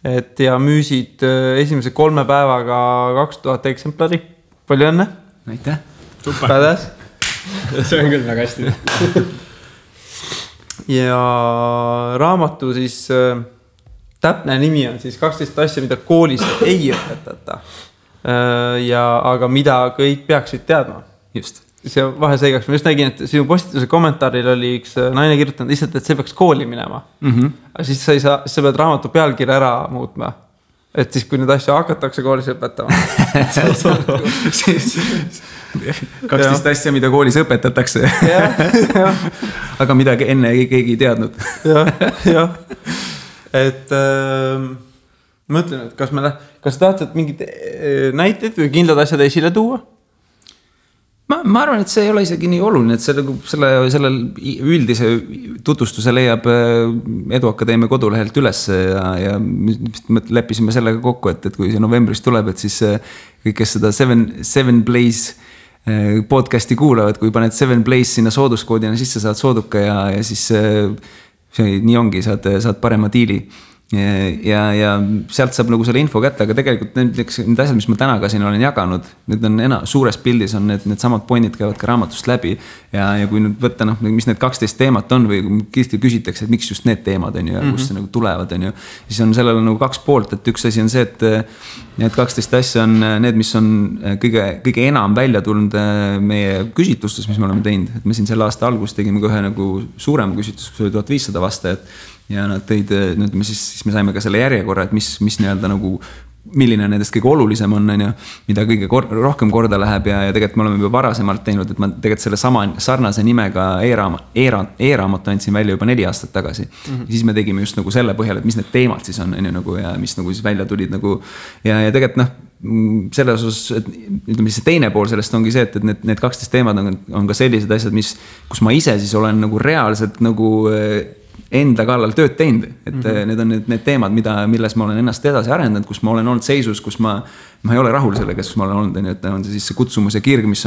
Et ja müüsid esimese 3 päevaga 2000 eksemplari. Palju õnne? Aitäh. Pädes. See on küll väga hästi. Ja raamatu siis täpne nimi on siis 12 asja, mida koolis ei õpetata. Aga mida kõik peaksid teadma. Just. See vahe seigaks. Ma just nägin, et sinu postituse kommentaaril oli üks naine kirjutanud lihtsalt, et see peaks kooli minema. Aga siis sa pead raamatu pealkirja ära muutma. Et siis, kui need asja hakatakse koolis õpetama. 12 asja, mida koolis õpetatakse. Aga midagi enne keegi ei teadnud. Jah. et mõtlen, et kas tahtsid mingid näiteid või kindlad asjad esile tuua? Ma arvan, et see ei ole isegi nii oluline, et selle üldise tutvustuse leiab Eduakadeemia kodulehelt üles ja leppisime sellega kokku, et kui see novembris tuleb, et siis kõik, kes seda Seven Blaze podcasti kuulavad, kui paned Seven Blaze sinna sooduskoodina sisse, saad sooduka ja siis see nii ongi, saad parema diili. Ja sealt saab nagu selle info kätte, aga tegelikult need asjad, mis ma täna ka siin olen jaganud, need on suures pildis on need samad pointid käivad ka raamatust läbi ja kui nüüd võtta, mis need 12 teemat on või kiiresti küsitakse, et miks just need teemad on ju ja kust see nagu tulevad on ju, siis on sellel nagu 2 poolt, et üks asi on see, et need 12 asja on need, mis on kõige enam välja tulnud meie küsitlustes, mis me oleme teinud, et me siin selle aasta alguses tegime ka ühe nagu suurema küsitlus, kus oli 1500 vastajat ja nad tõid, siis me saime ka selle järjekorra, et mis nii-öelda nagu, milline nendest kõige olulisem on, mida kõige rohkem korda läheb ja tegelikult me oleme juba varasemalt teinud, et ma tegelikult selle sama sarnase nimega e-raamatu andsin välja juba 4 aastat tagasi. Ja siis me tegime just nagu selle põhjal, et mis need teemad siis on nagu, ja mis nagu siis välja tulid nagu, ja tegelikult selles osas, et ütleme, see teine pool sellest ongi see, et need 12 teemad on ka sellised asjad, kus ma ise siis olen nagu reaalselt nagu enda kallal tööd teinud, et need on need teemad, milles ma olen ennast edasi arendanud, kus ma olen olnud seisus, kus ma ei ole rahul sellega, kus ma olen olnud, et on see siis see kutsumus ja kirg, mis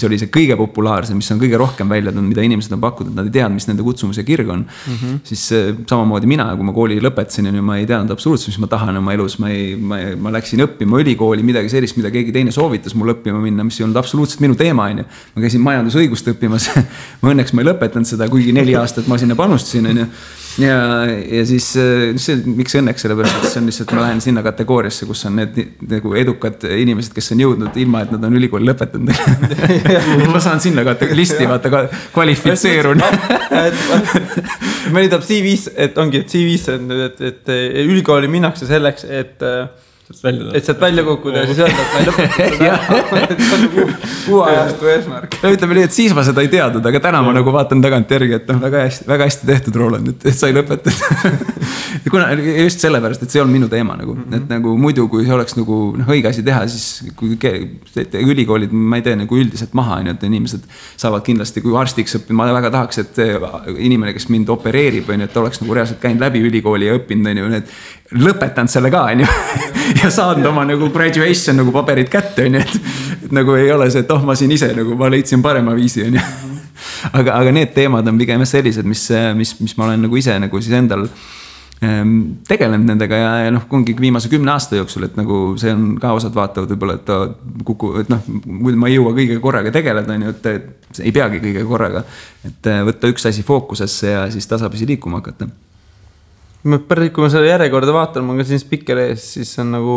oli see kõige populaarsem, mis on kõige rohkem välja tulnud, mida inimesed on pakkunud, nad ei teadnud, mis nende kutsumus ja kirg on. Siis samamoodi mina, kui ma kooli lõpetasin, ma ei teadnud absoluutselt, mis ma tahan oma elus, ma läksin õppima ülikooli midagi sellist, mida keegi teine soovitas mul õppima minna, mis ei olnud absoluutselt minu teema, ma käisin majandusõigust õppimas, ma õnneks ma ei lõpetanud seda, kuigi 4 aastat ma sinna panustasin, ja siis miks õnneks, sellepärast, et see on lihtsalt, ma lähen sinna kategooriasse, kus on need nagu edukad inimesed, kes on jõudnud ilma, et nad on ülikooli lõpetanud. Ma saan sinna listi, vaata, kvalifitseerun. Mõni tahab CV-s, et ongi, et CV-s on, et ülikooli minnakse selleks, et sealt välja kukkuda ja siis öelda, et ma ei lõpetanud seda. See on kuuajastu eesmärk. Ütleme nii, et siis ma seda ei teadnud, aga täna ma nagu vaatan tagant järgi, et väga hästi tehtud, Roland, et sai lõpetatud. Just sellepärast, et see on minu teema nagu, et nagu muidu, kui see oleks nagu õige asi teha, siis kui ülikoolid, ma ei tee nagu üldiselt maha, et inimesed saavad kindlasti, kui arstiks õppima, ma väga tahaks, et inimene, kes mind opereerib, et oleks nagu reaalselt käinud läbi ülikooli ja õppinud, et lõpetanud selle ka, ja saanud oma nagu graduation nagu paberid kätte, et nagu ei ole see, et ma siin ise nagu, ma leidsin parema viisi, aga need teemad on pigem sellised, mis ma olen nagu ise nagu siis endal tegelenud nendega ja ongi viimase 10 aasta jooksul, et nagu see on ka osad vaatavad võib-olla, et ma ei jõua kõige korraga tegeleda, et ei peagi kõige korraga, et võtta üks asi fookusesse ja siis tasapisi liikuma hakata. Kui ma selle järjekorda vaatan, ma ka siin spikker ees, siis on nagu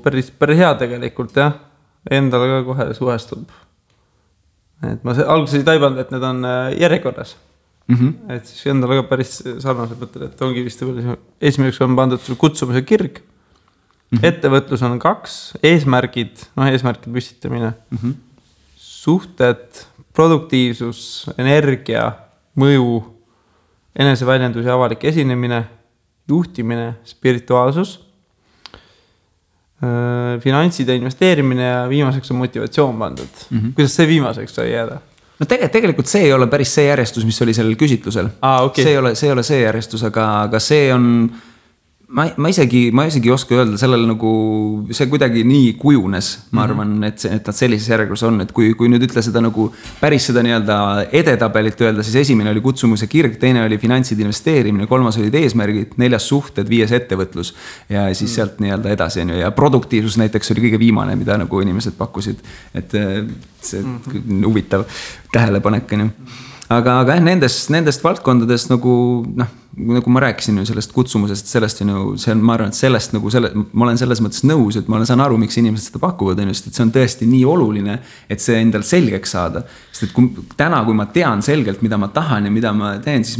päris hea tegelikult, jah. Endale ka kohe suhestub. Et ma alguses ei taibanud, et need on järjekorras. Et siis endale ka päris sarnaselt mõtlen, et ongi vist esimeseks on pandud kutsumise kirg. Ettevõtlus on 2, eesmärgid püstitamine, suhted, produktiivsus, energia, mõju, eneseväljendus ja avalik esinemine, juhtimine, spirituaalsus, finantsid ja investeerimine ja viimaseks on motivatsioon pandud. Kuidas see viimaseks sai jääda? No tegelikult see ei ole päris see järjestus, mis oli sellel küsitlusel. Okay. See ei ole see järjestus, aga see on... Ma isegi oska öelda sellel nagu, see kuidagi nii kujunes, ma arvan, et nad sellises järjekorras on, et kui nüüd ütle seda nagu päris seda nii-öelda edetabelit öelda, siis esimene oli kutsumus ja kirg, teine oli finantsid investeerimine, 3. olid eesmärgid, 4. suhted, 5. ettevõtlus ja siis sealt nii-öelda edasi ja produktiivsus näiteks oli kõige viimane, mida nagu inimesed pakkusid, et see huvitav tähelepanek on ju. Aga nendest valdkondadest nagu ma rääkisin ju sellest kutsumusest, sellest ma arvan, et sellest nagu ma olen selles mõttes nõus, et ma saan aru, miks inimesed seda pakuvad, et see on tõesti nii oluline, et see endal selgeks saada. Sest et täna, kui ma tean selgelt, mida ma tahan ja mida ma teen, siis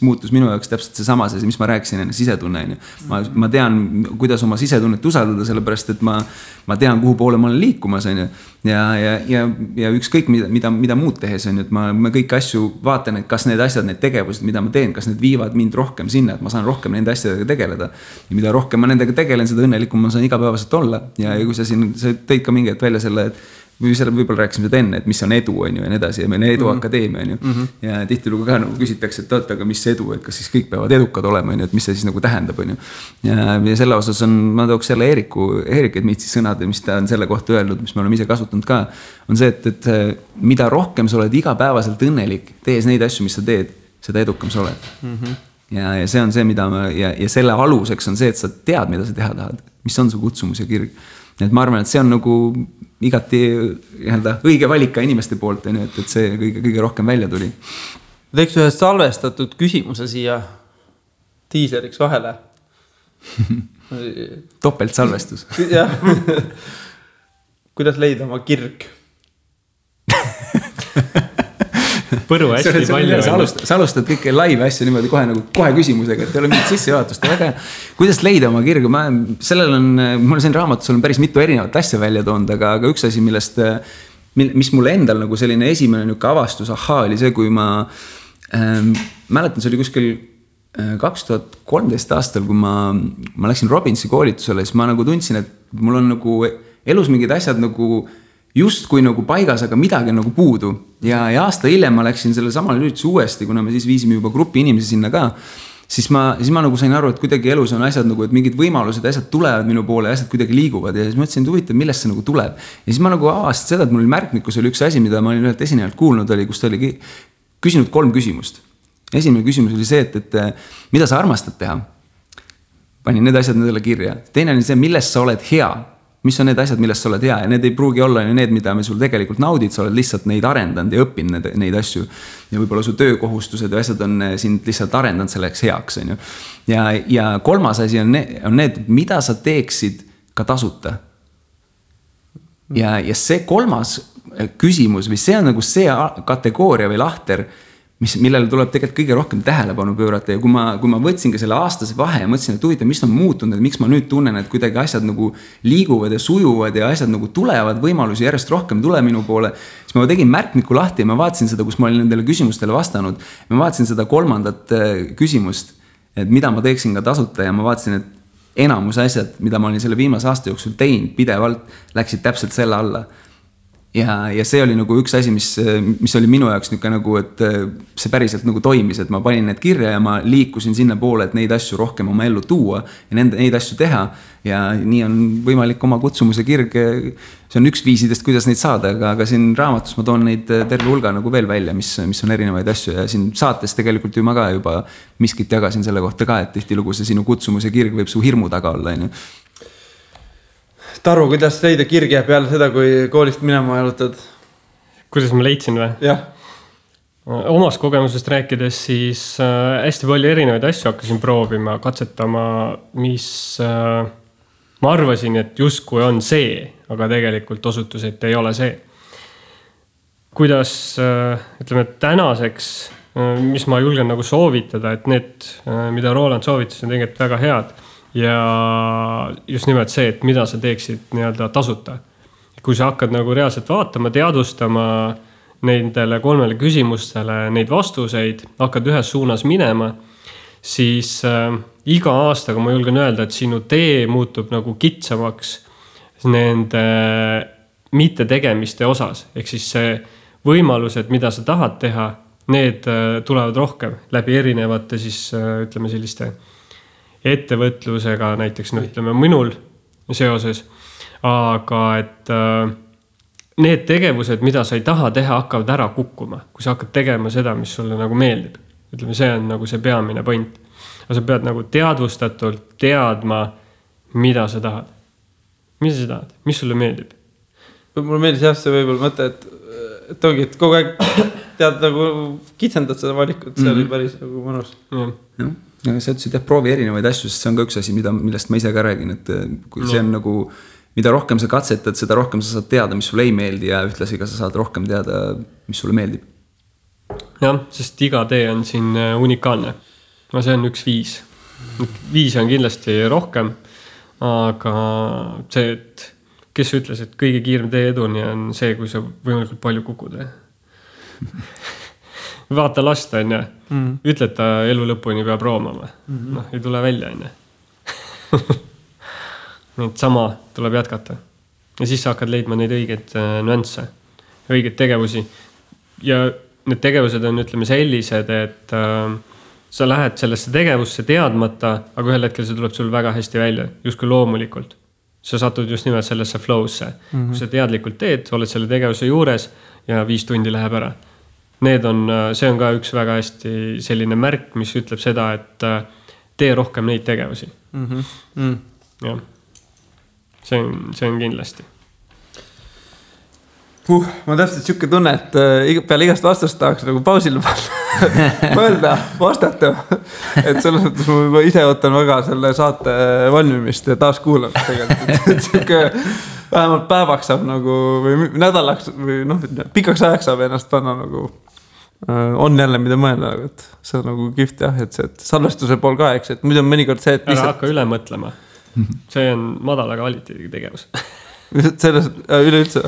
muutus minu jaoks täpselt see sama, mis ma rääkisin enne sisetunne. Ma tean, kuidas oma sisetunnet usaldada, sellepärast, et ma tean, kuhu poole ma olen liikumas. Ja ükskõik, mida muud tehes on, et ma kõiki asju vaatan, et kas need asjad, need tegevused, mida ma teen, kas need viivad viivad mind rohkem sinna, et ma saan rohkem nende asjadega tegeleda. Ja mida rohkem ma nendega tegelen, seda õnnelikum ma saan igapäevaselt olla. Ja kui sa tõid ka mingi hetk välja selle, et võib-olla rääkisime seda enne, et mis on edu, on ju, ja nii edasi, ja meil on eduakadeemia, on ju. Ja tihtilugu ka nagu küsitakse, et aga mis edu, et kas siis kõik peavad edukad olema, on ju, et mis see siis nagu tähendab, on ju. Ja selle osas on, ma tooks jälle Eerik Edmitsi sõnad, mis ta on selle kohta öelnud, mis me oleme ise kasutanud ka, on see, et mida rohkem sa oled igapäevaselt õnnelik, tees neid asju, mis sa teed, seda edukam sa oled. Ja see on see, mida ja selle aluseks on see, et sa tead, mida sa teha tahad, mis on su kutsumus ja kirg. Et ma arvan, et see on nagu igati õige valik ka inimeste poolt, et see kõige rohkem välja tuli. Teeks ühe salvestatud küsimuse siia tiiseriks vahele. Topelt salvestus. Jah. Kuidas leida oma kirg? Põru hästi palju. Sa alustad kõike live asja niimoodi kohe küsimusega, et ei ole mingit sissejuhatust. Kuidas leida oma kirgu? Mul siin raamatus on päris mitu erinevat asja välja toonud, aga üks asi, mis mulle endal nagu selline esimene avastus oli see, kui ma mäletan, see oli kuskil 2013 aastal, kui ma läksin Robbinsi koolitusele, siis ma nagu tundsin, et mul on nagu elus mingid asjad nagu just kui nagu paigas, aga midagi nagu puudu. Ja aasta hiljem ma läksin selle samale ürituse uuesti, kuna me siis viisime juba grupi inimesi sinna ka, siis ma nagu sain aru, et kuidagi elus on asjad nagu, et mingid võimalused, asjad tulevad minu poole, asjad kuidagi liiguvad ja siis ma mõtlesin, et huvitav, millest see nagu tuleb. Ja siis ma nagu avastasin seda, et mul märkmikus oli üks asi, mida ma olin ühelt esinejalt kuulnud, kus ta oli küsinud 3 küsimust. Esimene küsimus oli see, et mida sa armastad teha? Panin need asjad nendele kirja. Teine oli see, millest sa oled hea? Mis on need asjad, millest sa oled hea ja need ei pruugi olla need, mida me sul tegelikult naudid, sa oled lihtsalt neid arendanud ja õppinud neid asju ja võib-olla su töökohustused ja asjad on sind lihtsalt arendanud selleks heaks, on ju. Ja 3. asi on need, mida sa teeksid ka tasuta. Ja see 3. küsimus või see on nagu see kategooria või lahter, millele tuleb tegelikult kõige rohkem tähelepanu pöörata ja kui ma võtsin ka selle aastase vahe ja mõtlesin, et huvitav, mis on muutunud, et miks ma nüüd tunnen, et kuidagi asjad nagu liiguvad ja sujuvad ja asjad nagu tulevad, võimalusi järjest rohkem tule minu poole, siis ma tegin märkmiku lahti ja ma vaatasin seda, kus ma olin nendele küsimustele vastanud. Ma vaatasin seda 3. küsimust, et mida ma teeksin ka tasuta ja ma vaatasin, et enamus asjad, mida ma olin selle viimase aasta jooksul teinud pidevalt, läksid täpselt selle alla. Ja see oli nagu üks asi, mis oli minu jaoks nagu, et see päriselt nagu toimis, et ma panin need kirja ja ma liikusin sinna poole, et neid asju rohkem oma ellu tuua ja neid asju teha. Ja nii on võimalik oma kutsumuse kirg, see on üks viisidest, kuidas neid saada, aga siin raamatus ma toon neid terve hulga nagu veel välja, mis on erinevaid asju ja siin saates tegelikult ju ma ka juba miskit jagasin selle kohta ka, et tihtilugu see sinu kutsumuse kirg võib su hirmu taga olla, on ju. Taru, kuidas leida kirge peale seda, kui koolist minema jalutad? Kuidas ma leidsin või? Jah. Omast kogemusest rääkides siis hästi palju erinevaid asju hakkasin proovima, katsetama, mis ma arvasin, et justkui on see, aga tegelikult osutus, et ei ole see. Kuidas, ütleme, tänaseks, mis ma julgen nagu soovitada, et need, mida Roland soovitas, on tegelikult väga head. Ja just nimelt see, et mida sa teeksid nii-öelda tasuta. Kui sa hakkad nagu reaalselt vaatama, teadvustama nendele 3 küsimustele neid vastuseid, hakkad ühes suunas minema, siis iga aastaga ma julgen öelda, et sinu tee muutub nagu kitsamaks nende mittetegemiste osas. Ehk siis see võimalused, mida sa tahad teha, need tulevad rohkem läbi erinevate siis, ütleme selliste ettevõtlusega näiteks, ütleme minul seoses, aga et need tegevused, mida sa ei taha teha, hakkavad ära kukkuma, kui sa hakkad tegema seda, mis sulle nagu meeldib. Ütleme, see on nagu see peamine point. Aga sa pead nagu teadvustatult teadma, mida sa tahad. Mida sa tahad? Mis sulle meeldib? Mulle meeldis jah see võib-olla mõte, et ongi, et kogu aeg tead nagu kitsendad seda valikut, see oli päris nagu mõnus. Jah. Ja sa ütlesid, et proovi erinevaid asju, sest see on ka üks asi, millest ma ise ka räägin, et kui see on nagu, mida rohkem sa katsetad, seda rohkem sa saad teada, mis sulle ei meeldi ja ühtlasi ka sa saad rohkem teada, mis sulle meeldib. Jah, sest iga tee on siin unikaalne. No see on üks 5. 5 on kindlasti rohkem, aga see, et kes ütles, et kõige kiirem tee eduni on see, kui sa võimalikult palju kukud. vaata last, on ju. Ütled ta elu lõpuni peab roomama. Noh, ei tule välja, on ju. Neid sama tuleb jätkata. Ja siis sa hakkad leidma neid õigeid nüansse, õigeid tegevusi. Ja need tegevused on, ütleme, sellised, et sa lähed sellesse tegevusse teadmata, aga ühel hetkel see tuleb sul väga hästi välja, justkui loomulikult. Sa satud just nimelt sellesse flow'sse. Kui sa teadlikult teed, oled selle tegevuse juures ja 5 tundi läheb ära. See on ka üks väga hästi selline märk, mis ütleb seda, et tee rohkem neid tegevusi. Ja. See on kindlasti. Ma täpselt siuke tunne, et peale igast vastust tahaks nagu pausile mõelda, vastata. Et selles mõttes ma juba ise ootan väga selle saate valmimist ja taas kuulamist tegelikult. Et siuke vähemalt päevaks saab nagu, või nädalaks või pikaks ajaks saab ennast panna nagu, on jälle mida mõelda, et see on nagu kihvt jah, et see salvestuse pool ka, eks, et muidu on mõnikord see, et lihtsalt... Ära hakka üle mõtlema. See on madala kvaliteediga tegevus. Selles üleüldse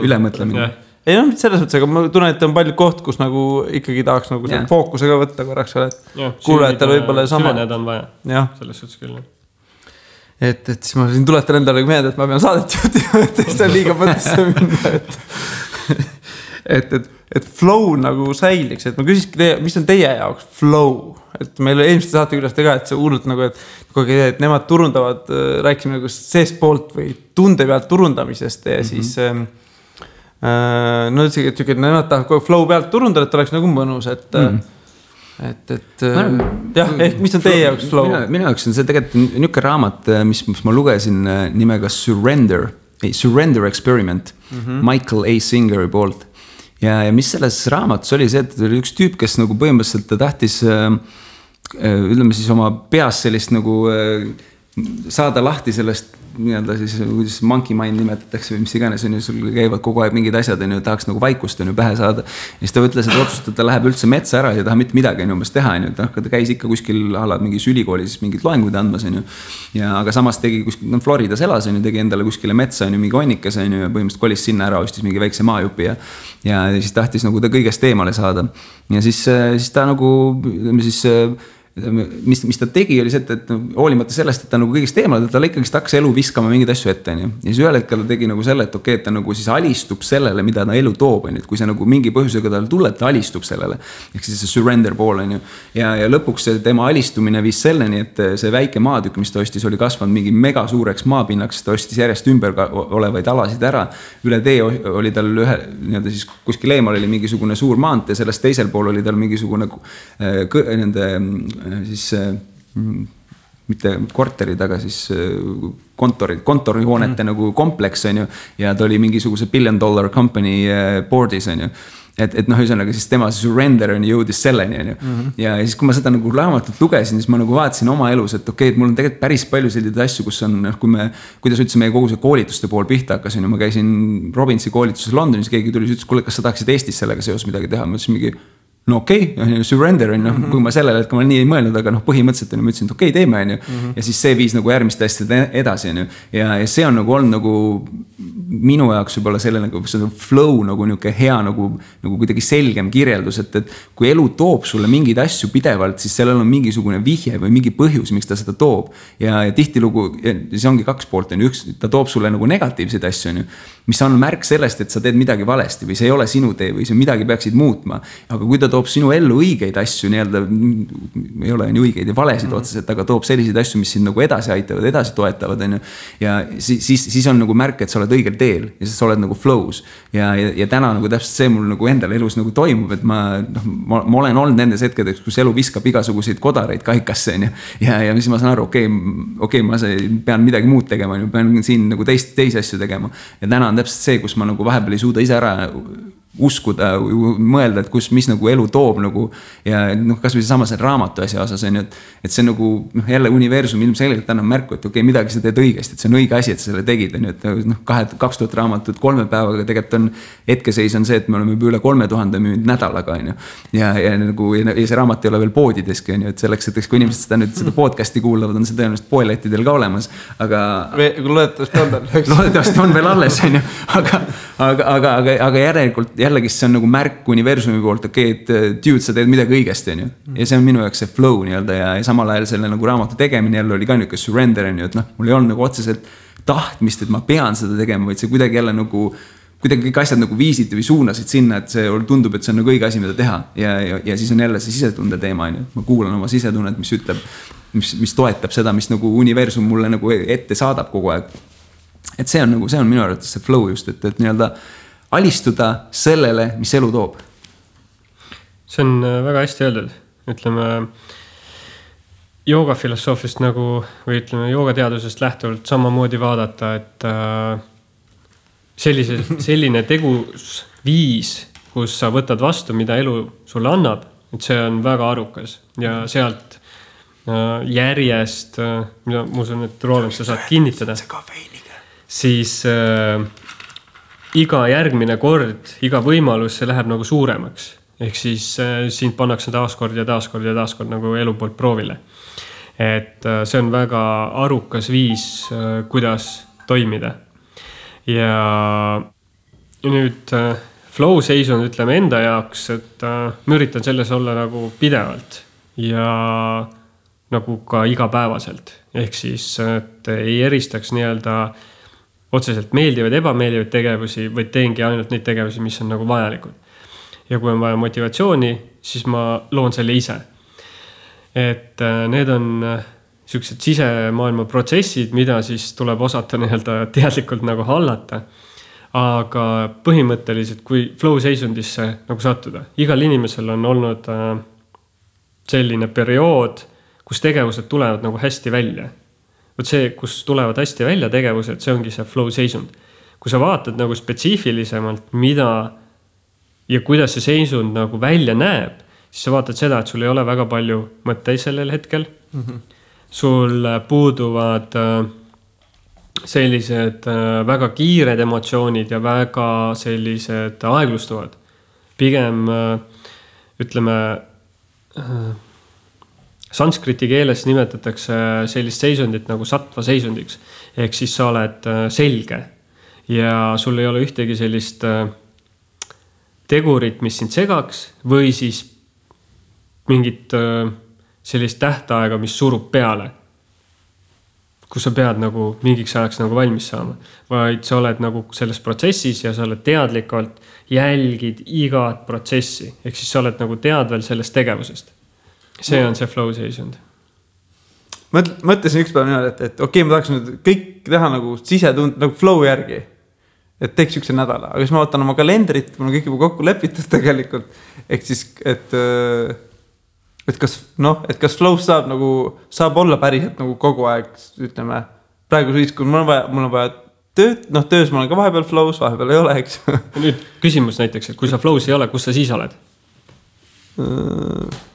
ülemõtlemine. Ei selles mõttes, aga ma tunnen, et on palju koht, kus nagu ikkagi tahaks nagu fookusega võtta korraks, et kuulajatel võib-olla sama. Süveneda on vaja, selles suhtes küll. Et siis ma siin tuletan endale meelde, et ma pean saadet juhtima, et see on liiga mõttesse minna, et flow nagu säiliks, et ma küsiski, mis on teie jaoks flow? Et meil eelmiste saate küljest ka, et see hullult nagu, et nemad turundavad, rääkisime nagu seest poolt või tunde pealt turundamisest ja siis üldse, et nemad tahavad flow pealt turundada, et oleks nagu mõnus, et jah, ehk mis on teie jaoks flow? Minu jaoks on see tegelikult niuke raamat, mis ma lugesin nimega Surrender Experiment Michael A. Singeri poolt. Ja mis selles raamatus oli see, et oli üks tüüp, kes nagu põhimõtteliselt ta tahtis ütleme siis oma peas sellist nagu saada lahti sellest nii-öelda siis, kuidas monkey mind nimetatakse või mis iganes on ju, sul käivad kogu aeg mingid asjad on ju, tahaks nagu vaikust on ju pähe saada. Ja siis ta ütles, et otsustada, ta läheb üldse metsa ära ja taha mitte midagi on umbes teha on ju, ta käis ikka kuskil alad mingis ülikoolis mingid loenguid andmas on ju. Ja aga samas tegi kuskil, Floridas elas on ju, tegi endale kuskile metsa on ju, mingi onnikas on ju ja põhimõtteliselt kolis sinna ära, ostis mingi väikse maajupi ja siis tahtis nagu ta kõigest eemale saada. Ja siis ta nagu, ütleme siis mis ta tegi oli see, et hoolimata sellest, et ta nagu kõigest eemale, ta ikkagi hakkas elu viskama mingeid asju ette. Ja siis ühel hetkel ta tegi nagu selle, et okei, et ta nagu siis alistub sellele, mida ta elu toob. Et kui see nagu mingi põhjusega tal tuleb, ta alistub sellele. Ehk siis see surrender pool on ju. Ja lõpuks tema alistumine viis selleni, et see väike maatükk, mis ta ostis, oli kasvanud mingi mega suureks maapinnaks, ta ostis järjest ümber olevaid alasid ära. Üle tee oli tal nii-öelda siis kuskil eemal oli mingisugune suur maantee, sellest teisel pool oli tal mingisugune siis mitte korterid, aga siis kontorihoonete nagu kompleks on ju, ja ta oli mingisuguse $1 billion company board'is on ju. Et ühesõnaga siis tema surrender on jõudis selleni on ju. Ja siis kui ma seda nagu raamatut lugesin, siis ma nagu vaatasin oma elus, et okei, et mul on tegelikult päris palju selliseid asju, kus on, kuidas üldse meie kogu see koolituste pool pihta hakkas on ju, ma käisin Robinsi koolituses Londonis, keegi tuli, ütles, kuule, kas sa tahaksid Eestis sellega seos midagi teha, ma ütlesin mingi no okei, surrender on, kui ma sellele, et ma nii ei mõelnud, aga põhimõtteliselt on, ma ütlesin, et okei, teeme on ju. Ja siis see viis nagu järgmiste asjade edasi on ju. Ja see on nagu olnud nagu minu jaoks võib-olla selle nagu flow nagu niuke hea nagu kuidagi selgem kirjeldus, et kui elu toob sulle mingeid asju pidevalt, siis sellel on mingisugune vihje või mingi põhjus, miks ta seda toob. Ja tihtilugu, see ongi 2 poolt on ju, üks, ta toob sulle nagu negatiivseid asju on ju, mis on märk sellest, et sa teed midagi valesti või see ei ole sinu tee või see midagi peaksid muutma. Aga kui ta toob sinu ellu õigeid asju, nii-öelda ei ole nii õigeid ja valesid otseselt, aga toob selliseid asju, mis sind nagu edasi aitavad, edasi toetavad on ju. Ja siis on nagu märk, et sa oled õigel teel ja siis sa oled nagu flows. Ja täna nagu täpselt see mul nagu endal elus nagu toimub, et ma olen olnud nendes hetkedeks, kus elu viskab igasuguseid kodareid kaikasse on ju. Ja siis ma saan aru, okei, ma pean midagi muud tegema, pean siin nagu teisi asju tegema. Ja täna on täpselt see, kus ma nagu vahepeal ei suuda ise ära uskuda, mõelda, et mis nagu elu toob nagu ja kas või sama see raamatu asja osas on ju, et see nagu jälle universum ilmselgelt annab märku, et okei, midagi sa teed õigesti, et see on õige asi, et sa selle tegid on ju, et 2000 raamatut 3 päevaga tegelikult on hetkeseis on see, et me oleme juba üle 3000 müünud nädalaga on ju ja see raamat ei ole veel poodideski on ju, et selleks, et kui inimesed seda podcasti kuulavad, on see tõenäoliselt poelettidel ka olemas, aga loodetavasti on veel alles on ju, aga järelikult jällegi see on nagu märk universumi poolt, et dude, sa teed midagi õigesti, on ju. Ja see on minu jaoks see flow nii-öelda ja samal ajal selle nagu raamatu tegemine jälle oli ka niisugune surrender, on ju, et noh, mul ei olnud nagu otseselt tahtmist, et ma pean seda tegema, vaid see kuidagi jälle nagu, kuidagi kõik asjad nagu viisid või suunasid sinna, et see tundub, et see on nagu õige asi, mida teha. Ja siis on jälle see sisetunde teema, on ju. Ma kuulan oma sisetunnet, mis ütleb, mis toetab seda, mis nagu universum mulle nagu ette saadab kogu aeg. Et see on minu arvates see flow just, et nii-öelda alistuda sellele, mis elu toob. See on väga hästi öeldud. Ütleme, joogafilosoofiast nagu, või ütleme, joogateadusest lähtuvalt samamoodi vaadata, et selline tegusviis, kus sa võtad vastu, mida elu sulle annab, et see on väga arukas. Ja sealt järjest, ma usun, et Roland, sa saad kinnitada, siis iga järgmine kord, iga võimalus, see läheb nagu suuremaks. Ehk siis sind pannakse taaskord nagu elu poolt proovile. Et see on väga arukas viis, kuidas toimida. Ja nüüd flow seisund ütleme enda jaoks, et ma üritan selles olla nagu pidevalt ja nagu ka igapäevaselt. Ehk siis, et ei eristaks nii-öelda otseselt meeldivaid, ebameeldivaid tegevusi, vaid teengi ainult neid tegevusi, mis on nagu vajalikud. Ja kui on vaja motivatsiooni, siis ma loon selle ise. Et need on sellised sisemaailma protsessid, mida siis tuleb osata nii-öelda teadlikult nagu hallata. Aga põhimõtteliselt, kui flow seisundisse nagu sattuda, igal inimesel on olnud selline periood, kus tegevused tulevad nagu hästi välja. Võt see, kus tulevad hästi välja tegevused, see ongi see flow seisund. Kui sa vaatad nagu spetsiifilisemalt, mida ja kuidas see seisund nagu välja näeb, siis sa vaatad seda, et sul ei ole väga palju mõtteid sellel hetkel. Sul puuduvad sellised väga kiired emotsioonid ja väga sellised aeglustuvad. Pigem ütleme sanskriti keeles nimetatakse sellist seisundit nagu sattva seisundiks. Ehk siis sa oled selge ja sul ei ole ühtegi sellist tegurit, mis sind segaks või siis mingit sellist tähtaega, mis surub peale, kus sa pead nagu mingiks ajaks nagu valmis saama. Vaid sa oled nagu selles protsessis ja sa oled teadlikult jälgid igat protsessi. Ehk siis sa oled nagu teadvel sellest tegevusest. See on see flow seisund. Mõtlesin üks päev niimoodi, et okei, ma tahaks nüüd kõik teha nagu sisetund, nagu flow järgi. Et teeks ükse nädala. Aga siis ma vaatan oma kalendrit, mul on kõik juba kokku lepitud tegelikult. Ehk siis, et kas flow saab olla päriselt nagu kogu aeg, ütleme, praegu siis, kui mul on vaja tööd, töös ma olen ka vahepeal flows, vahepeal ei ole, eks. Nüüd küsimus näiteks, et kui sa flows ei ole, kus sa siis oled?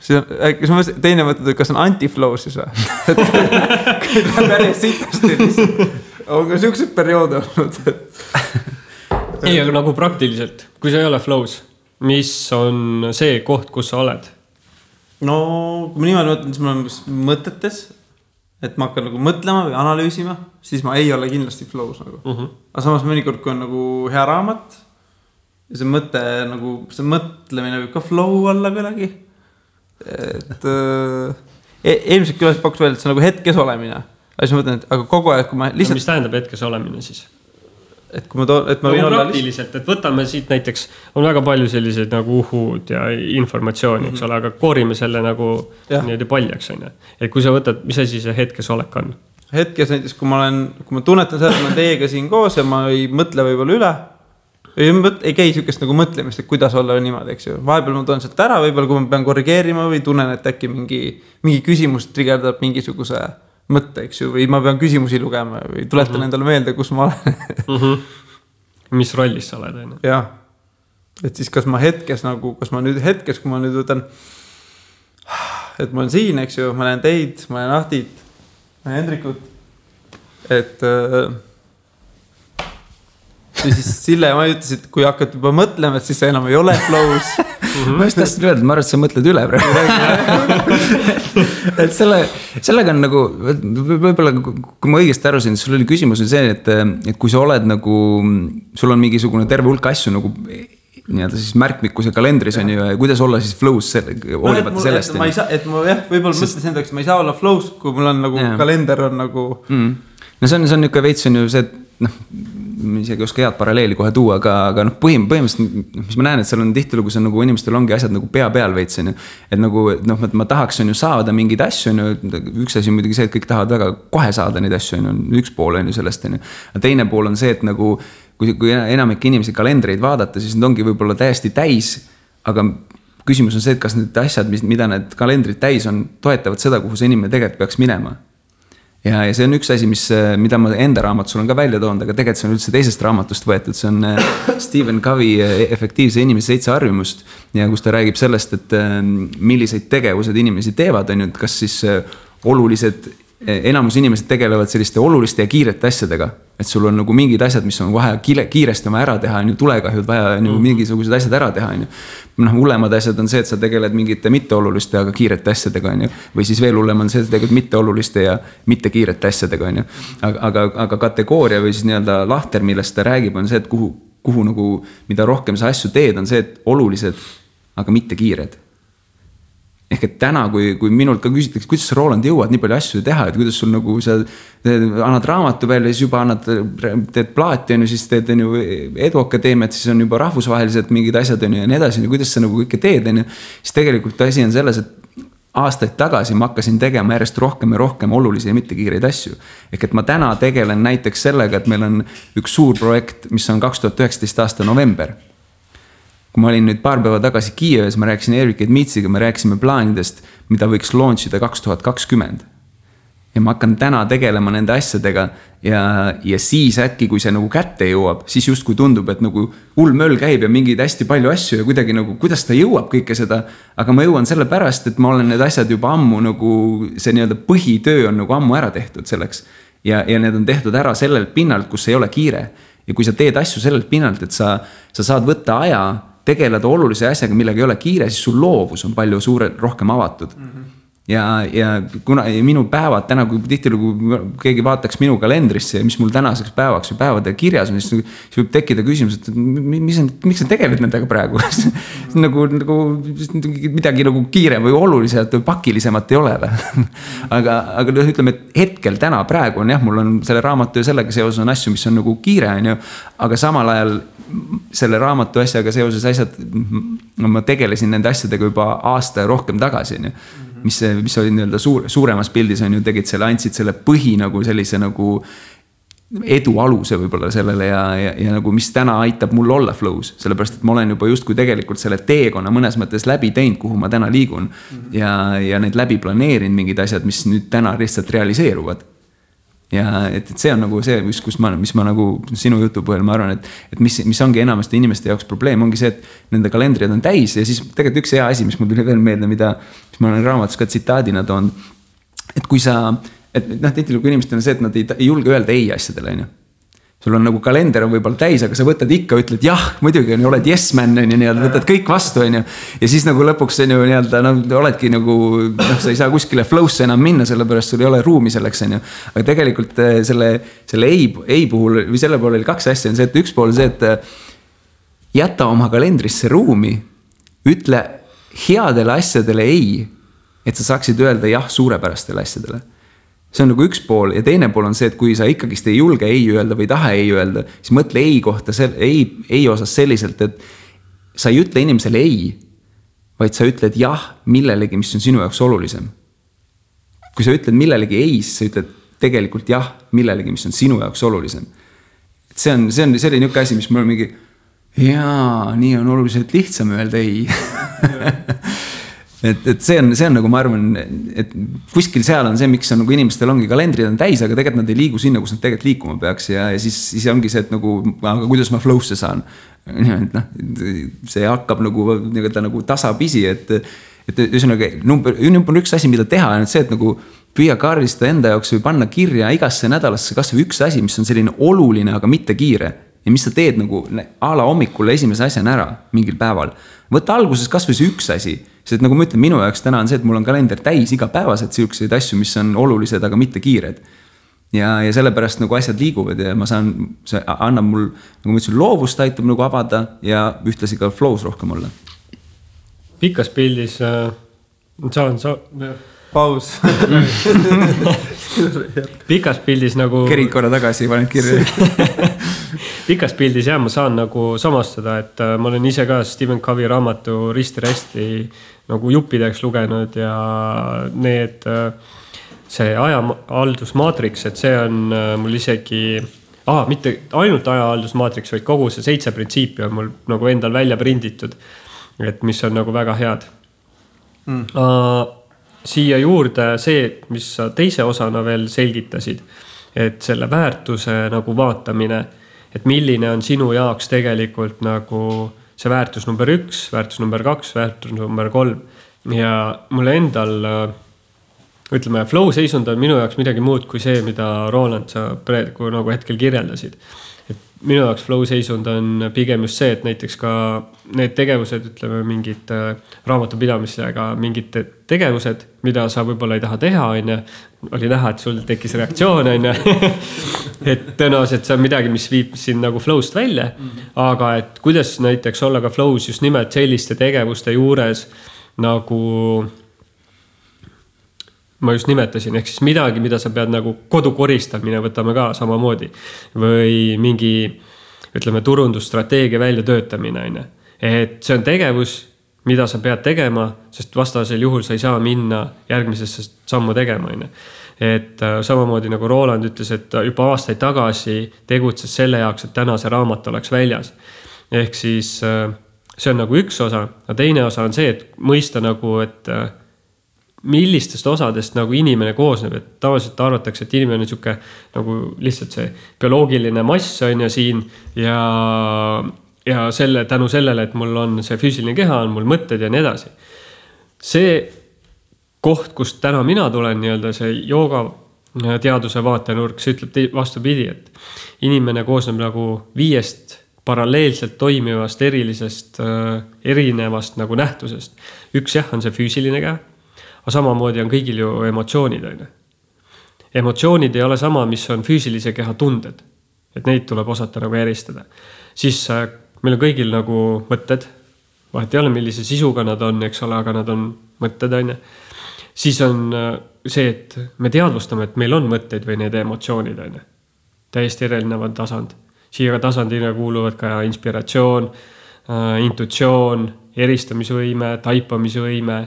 Teine mõtled, kas on anti-flow siis või? Kui ta päris sitasti on ka siuksed perioode olnud. Ei, aga nagu praktiliselt, kui sa ei ole flows, mis on see koht, kus sa oled? No, kui ma niimoodi mõtlen, siis ma olen mõtetes, et ma hakkan nagu mõtlema või analüüsima, siis ma ei ole kindlasti flows nagu. Aga samas mõnikord, kui on nagu hea raamat, ja see mõte nagu, see mõtlemine võib ka flow olla kuidagi. Et eelmiselt külas pakuks veel, et see on nagu hetkes olemine. Aga siis ma mõtlen, et aga kogu aeg, kui ma lihtsalt... Mis tähendab hetkes olemine siis? Et kui ma võin olla praktiliselt, et võtame siit näiteks, on väga palju selliseid nagu uhud ja informatsiooni, eks ole, aga koorime selle nagu niimoodi paljaks. Et kui sa võtad, mis asi see hetkes olek on? Hetkes näiteks, kui ma tunnetan seda, et ma teiega siin koos ja ma ei mõtle võib-olla üle, ei käi sükest nagu mõtlemist, et kuidas olla niimoodi, eks ju. Vahepeal ma tulen sealt ära, võib-olla kui ma pean korrigeerima või tunnen, et äkki mingi küsimus trigerdab mingisuguse mõtte, eks ju, või ma pean küsimusi lugema või tuletan endale meelde, kus ma olen. Mis rollis sa oled? Jah. Et siis kas ma hetkes, kui ma nüüd võtan, et ma olen siin, eks ju, ma olen teid, ma olen Ahtit, ma olen Hendrikut, et ja siis Sille ja ma ütlesin, et kui hakkad juba mõtlema, et siis sa enam ei ole flows. Ma just tahtsin öelda, ma arvan, et sa mõtled üle praegu. Et sellega on nagu, võib-olla kui ma õigesti arusin, sul oli küsimus on see, et kui sa oled nagu, sul on mingisugune terve hulk asju nagu nii-öelda siis märkmikkuse kalendris on ju ja kuidas olla siis flow's hoolimata sellest. Ma ei saa, et ma võib-olla mõtlesin endaks, ma ei saa olla flow's, kui mul on nagu kalender on nagu. No see on niisugune veits on ju see, et isegi oska head paralleeli kohe tuua, aga põhimõtteliselt, mis ma näen, et seal on tihtilugu see nagu inimestel ongi asjad nagu pea peal veits on ju. Et nagu, ma tahaks on ju saada mingeid asju on ju, üks asi muidugi see, et kõik tahavad väga kohe saada neid asju on ju, üks pool on ju sellest on ju. Teine pool on see, et nagu kui enamik inimesi kalendreid vaadata, siis need ongi võib-olla täiesti täis, aga küsimus on see, et kas need asjad, mida need kalendrid täis on, toetavad seda, kuhu see inimene tegelikult peaks minema. Ja see on üks asi, mida ma enda raamatus olen ka välja toonud, aga tegelikult see on üldse teisest raamatust võetud, see on Stephen Covey efektiivse inimese 7 harjumust ja kus ta räägib sellest, et milliseid tegevused inimesi teevad, on ju, et kas siis olulised enamus inimesed tegelevad selliste oluliste ja kiirete asjadega, et sul on nagu mingid asjad, mis on vaja kiiresti oma ära teha, on ju tulekahjud vaja on ju mingisugused asjad ära teha, on ju. Hullemad asjad on see, et sa tegeled mingite mitteoluliste, aga kiirete asjadega, on ju. Või siis veel hullem on see, et tegelikult mitteoluliste ja mitte kiirete asjadega, on ju. Aga kategooria või siis nii-öelda lahter, millest ta räägib, on see, et kuhu nagu, mida rohkem sa asju teed, on see, et olulised, aga mitte kiired. Ehk et täna, kui minult ka küsitakse, kuidas sa Roland jõuad nii palju asju teha, et kuidas sul nagu sa annad raamatu välja, siis juba teed plaati, on ju, siis teed on ju eduakadeemiat, siis on juba rahvusvaheliselt mingid asjad on ju ja nii edasi, kuidas sa nagu kõike teed, on ju. Siis tegelikult asi on selles, et aastaid tagasi ma hakkasin tegema järjest rohkem ja rohkem olulisi ja mitte kiireid asju. Ehk et ma täna tegelen näiteks sellega, et meil on üks suur projekt, mis on 2019 aasta november. Kui ma olin nüüd paar päeva tagasi Kiievis, ma rääkisin Erik Edmitsiga, me rääkisime plaanidest, mida võiks launchida 2020. Ja ma hakkan täna tegelema nende asjadega ja siis äkki, kui see nagu kätte jõuab, siis just kui tundub, et nagu hull möll käib ja mingeid hästi palju asju ja kuidagi nagu, kuidas ta jõuab kõike seda, aga ma jõuan selle pärast, et ma olen need asjad juba ammu nagu, see nii-öelda põhitöö on nagu ammu ära tehtud selleks ja need on tehtud ära sellelt pinnalt, kus ei ole kiire ja kui sa teed asju sellelt pinnalt, et sa saad võtta aja tegeleda olulise asjaga, millega ei ole kiire, siis sul loovus on palju rohkem avatud. Ja kuna minu päevad täna, kui tihtilugu keegi vaataks minu kalendrisse ja mis mul tänaseks päevaks või päevade kirjas on, siis võib tekkida küsimus, et miks sa tegeled nendega praegu? nagu midagi nagu kiirem või oluliselt või pakilisemat ei ole. aga ütleme, et hetkel täna praegu on jah, mul on selle raamatu ja sellega seoses on asju, mis on nagu kiire, on ju, aga samal ajal selle raamatu asjaga seoses asjad, ma tegelesin nende asjadega juba aasta ja rohkem tagasi, on ju. Mis oli nii-öelda suuremas pildis on ju, tegid selle, andsid selle põhi nagu sellise nagu edu aluse võib-olla sellele ja nagu mis täna aitab mul olla flow's, sellepärast, et ma olen juba justkui tegelikult selle teekonna mõnes mõttes läbi teinud, kuhu ma täna liigun ja need läbi planeerinud mingid asjad, mis nüüd täna lihtsalt realiseeruvad. Ja et see on nagu see, mis ma nagu sinu jutu põhjal ma arvan, et mis ongi enamasti inimeste jaoks probleem, ongi see, et nende kalendrid on täis ja siis tegelikult üks hea asi, mis mul tuli veel meelde, mis ma olen raamatus ka tsitaadina toon, et kui sa, tihtilugu inimestel on see, et nad ei julge öelda ei asjadele, on ju. Sul on nagu kalender on võib-olla täis, aga sa võtad ikka, ütled jah, muidugi on ju, oled yes man, on ju, võtad kõik vastu, on ju. Ja siis nagu lõpuks on ju oledki nagu, sa ei saa kuskile flow'sse enam minna, sellepärast sul ei ole ruumi selleks, on ju. Aga tegelikult selle ei puhul, või selle poole oli 2 asja, on see, et üks pool see, et jäta oma kalendrisse ruumi, ütle headele asjadele ei, et sa saaksid öelda jah suurepärastele asjadele. See on nagu üks pool ja teine pool on see, et kui sa ikkagist ei julge ei öelda või taha ei öelda, siis mõtle ei kohta, ei osas selliselt, et sa ei ütle inimesele ei, vaid sa ütled jah millelegi, mis on sinu jaoks olulisem. Kui sa ütled millelegi ei, siis sa ütled tegelikult jah millelegi, mis on sinu jaoks olulisem. Et see on niisugune asi, mis mul on mingi jaa, nii on oluliselt lihtsam öelda ei. Et see on nagu ma arvan, et kuskil seal on see, miks on nagu inimestel ongi kalendrid on täis, aga tegelikult nad ei liigu sinna, kus nad tegelikult liikuma peaks ja siis ongi see, et nagu, aga kuidas ma flow'sse saan. See hakkab nagu tasapisi, et üsonagi number 1 asi, mida teha on see, et nagu püüa kaardistada enda jaoks või panna kirja igasse nädalasse kas või üks asi, mis on selline oluline, aga mitte kiire ja mis sa teed nagu a la hommikul esimese asjana ära mingil päeval. Võtta alguses kas või see üks asi, sest nagu ma ütlen, minu jaoks täna on see, et mul on kalender täis igapäevaselt siukseid asju, mis on olulised, aga mitte kiired. ja sellepärast nagu asjad liiguvad ja ma saan, see annab mul, nagu ma ütlesin, loovust aitab nagu avada ja ühtlasi ka flows rohkem olla. Pikas pildis paus. Pikas pildis nagu kerid korra tagasi, paned kirja. Pikas pildis ma saan nagu samastada, et ma olen ise ka Stephen Covey raamatu risti nagu juppideks lugenud ja need, see ajahaldusmaatriks, et see on mul isegi, mitte ainult ajahaldusmaatriks, vaid kogu see 7 printsiipi on mul nagu endal välja prinditud, et mis on nagu väga head. Siia juurde see, mis sa teise osana veel selgitasid, et selle väärtuse nagu vaatamine, et milline on sinu jaoks tegelikult nagu see väärtus number 1, väärtus number 2, väärtus number 3 ja mulle endal, ütleme, flow seisund on minu jaoks midagi muud kui see, mida Roland sa praegu nagu hetkel kirjeldasid. Et minu jaoks flow seisund on pigem just see, et näiteks ka need tegevused, ütleme mingid raamatupidamisega, mingid tegevused, mida sa võib-olla ei taha teha, oli näha, et sul tekkis reaktsioon, et tõenäoliselt see on midagi, mis viib sind nagu flowst välja, aga et kuidas näiteks olla ka flows just nimelt selliste tegevuste juures nagu ma just nimetasin, ehk siis midagi, mida sa pead nagu kodukoristamine võtame ka samamoodi või mingi, ütleme, turundusstrateegia välja töötamine. Et see on tegevus, mida sa pead tegema, sest vastasel juhul sa ei saa minna järgmisesse sammu tegema. Et samamoodi nagu Roland ütles, et juba aastaid tagasi tegutses selle jaoks, et täna see raamat oleks väljas. Ehk siis see on nagu üks osa, ja teine osa on see, et mõista nagu, et millistest osadest nagu inimene koosneb, et tavaliselt arvatakse, et inimene on siuke nagu lihtsalt see bioloogiline mass on ja siin ja selle, tänu sellele, et mul on see füüsiline keha, on mul mõtted ja nii edasi. See koht, kust täna mina tulen, nii-öelda see jooga teaduse vaatenurk, see ütleb vastupidi, et inimene koosneb nagu 5 paralleelselt toimivast erinevast nagu nähtusest. Üks on see füüsiline keha, aga samamoodi on kõigil ju emotsioonid. Emotsioonid ei ole sama, mis on füüsilise keha tunded. Et neid tuleb osata nagu eristada. Siis meil on kõigil nagu mõtted. Vahet ei ole, millise sisuga nad on, eks ole, aga nad on mõtted. Siis on see, et me teadvustame, et meil on mõtteid või need emotsioonid. Täiesti erinevad tasand. Siia tasandina kuuluvad ka inspiratsioon, intuitsioon, eristamisvõime, taipamisvõime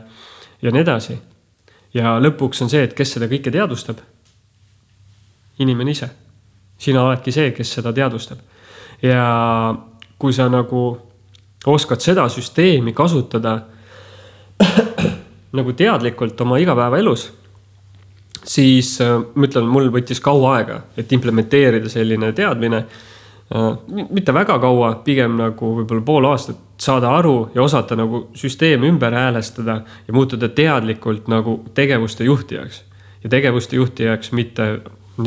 ja nii edasi. Ja lõpuks on see, et kes seda kõike teadvustab? Inimene ise. Sina oledki see, kes seda teadvustab. Ja kui sa nagu oskad seda süsteemi kasutada nagu teadlikult oma igapäeva elus, siis ma ütlen, mul võttis kaua aega, et implementeerida selline teadmine. Mitte väga kaua, pigem nagu võib-olla pool aastat saada aru ja osata nagu süsteemi ümber häälestada ja muutuda teadlikult nagu tegevuste juhtijaks. Ja tegevuste juhtijaks mitte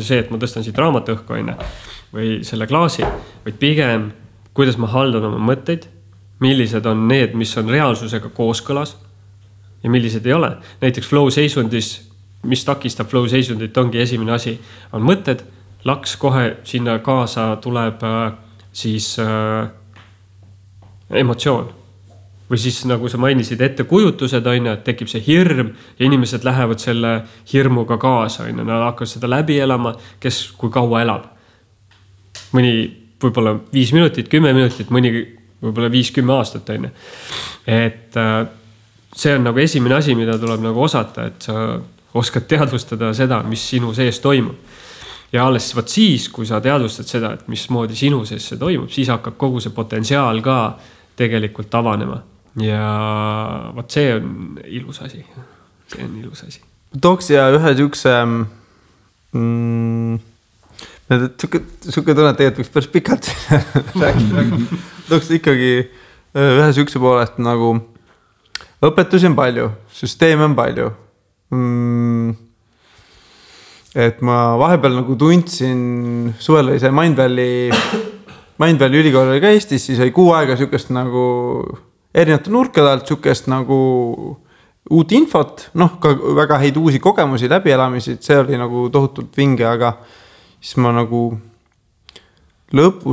see, et ma tõstan siit raamatõhku või selle klaasi, vaid pigem, kuidas ma haldan oma mõtteid, millised on need, mis on reaalsusega kooskõlas ja millised ei ole. Näiteks flow seisundis, mis takistab flow seisundit, ongi esimene asi, on mõtted, laks kohe sinna kaasa tuleb siis emotsioon. Või siis nagu sa mainisid ettekujutused, et tekib see hirm ja inimesed lähevad selle hirmuga kaasa. Nad hakkavad seda läbi elama, kes kui kaua elab. Mõni võib-olla 5 minutit, 10 minutit, mõni võib-olla 5-10 aastat. Et see on nagu esimene asi, mida tuleb nagu osata, et sa oskad teadvustada seda, mis sinu sees toimub. Ja alles võt siis, kui sa teadvustad seda, et mis moodi sinu sees see toimub, siis hakkab kogu see potentsiaal ka tegelikult avanema. Ja võt see on ilus asi. See on ilus asi. Tooks ja ühe siukse siuke tunne, et tegelikult võiks päris pikalt rääkida. Tooks ikkagi ühe siukse poolest nagu õpetusi on palju, süsteeme on palju. Et ma vahepeal nagu tundsin, suvel oli see Mindvalley ülikool oli ka Eestis, siis oli 6 aega siukest nagu erinevate nurkade alt siukest nagu uut infot, ka väga häid uusi kogemusi, läbielamisi, see oli nagu tohutult vinge, aga siis ma nagu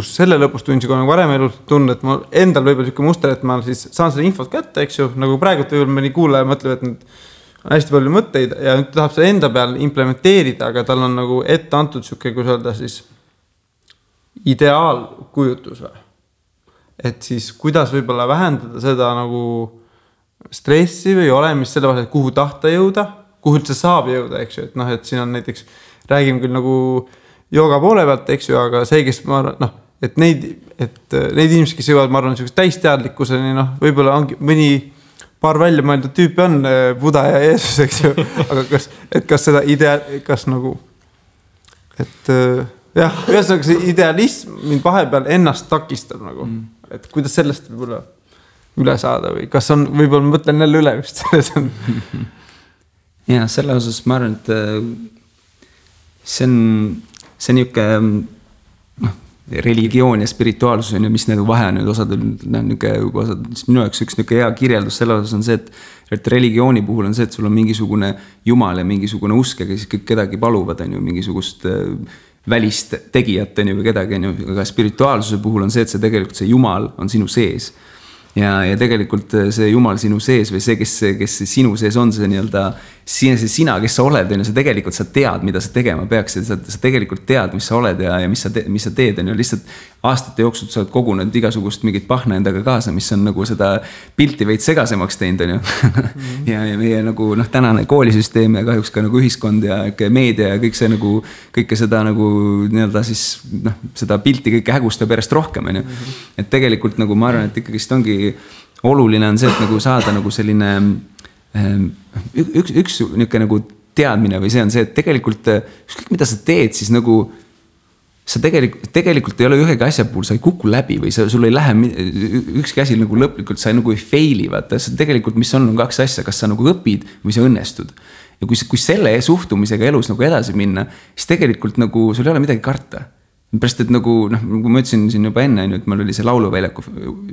selle lõpus tundsin, kui nagu varem elus tundnud, et ma endal võib-olla selline muster, et ma siis saan selle infot kätte, eks ju, nagu praegu võib-olla mõni kuulaja mõtleb, et nüüd on hästi palju mõtteid ja nüüd tahab selle enda peal implementeerida, aga tal on nagu ette antud selline, kui öelda siis ideaalkujutus või. Et siis kuidas võib-olla vähendada seda nagu stressi või olemist selle vahel, et kuhu tahta jõuda, kuhu üldse saab jõuda, eks ju, et noh, et siin on näiteks, räägime küll nagu jooga poole pealt, eks ju, aga see, kes ma arvan, noh, et neid inimesi, kes jõuavad, ma arvan, sellist täisteadlikkuseni, noh, võib-olla ongi mõni paar välja mõeldud tüüpi on Buda ja Jeesus, eks ju, aga kas seda kas nagu, et jah, ühesõnaga see idealism mind vahepeal ennast takistab nagu, et kuidas sellest võib-olla üle saada või kas on, võib-olla ma mõtlen jälle üle vist selles on. Ja selle osas ma arvan, et see on niisugune religioon ja spirituaalsus on ju, mis need vahe nüüd osad minu jaoks üks niisugune hea kirjeldus selle osas on see, et religiooni puhul on see, et sul on mingisugune jumal ja mingisugune usk ja siis kõik kedagi paluvad on ju, mingisugust välist tegijat on ju või kedagi on ju, aga spirituaalsuse puhul on see, et see tegelikult see jumal on sinu sees. Ja tegelikult see jumal sinu sees või see, kes sinu sees on, see nii-öelda sina, kes sa oled, sa tegelikult sa tead, mida sa tegema peaks ja sa tegelikult tead, mis sa oled ja mis sa teed, on ju, lihtsalt aastate jooksul sa oled kogunud igasugust mingit pahna endaga kaasa, mis on nagu seda pilti veid segasemaks teinud, on ju. Ja meie nagu tänane koolisüsteem ja kahjuks ka nagu ühiskond ja meedia ja kõik see nagu, kõike seda nagu nii-öelda siis seda pilti kõike hägustab järjest rohkem, on ju. Et tegelikult nagu ma arvan, et ikkagi ongi oluline on see, et nagu saada nagu selline üks niisugune nagu teadmine või see on see, et tegelikult ükskõik mida sa teed, siis nagu sa tegelikult ei ole ühegi asja puhul, sa ei kuku läbi või sul ei lähe ükski asi nagu lõplikult, sa nagu ei faili, vaata, tegelikult mis on kaks asja, kas sa nagu õpid või sa õnnestud. Ja kui selle suhtumisega elus nagu edasi minna, siis tegelikult nagu sul ei ole midagi karta. Pärast, et nagu ma ütlesin siin juba enne, et meil oli see lauluväljaku,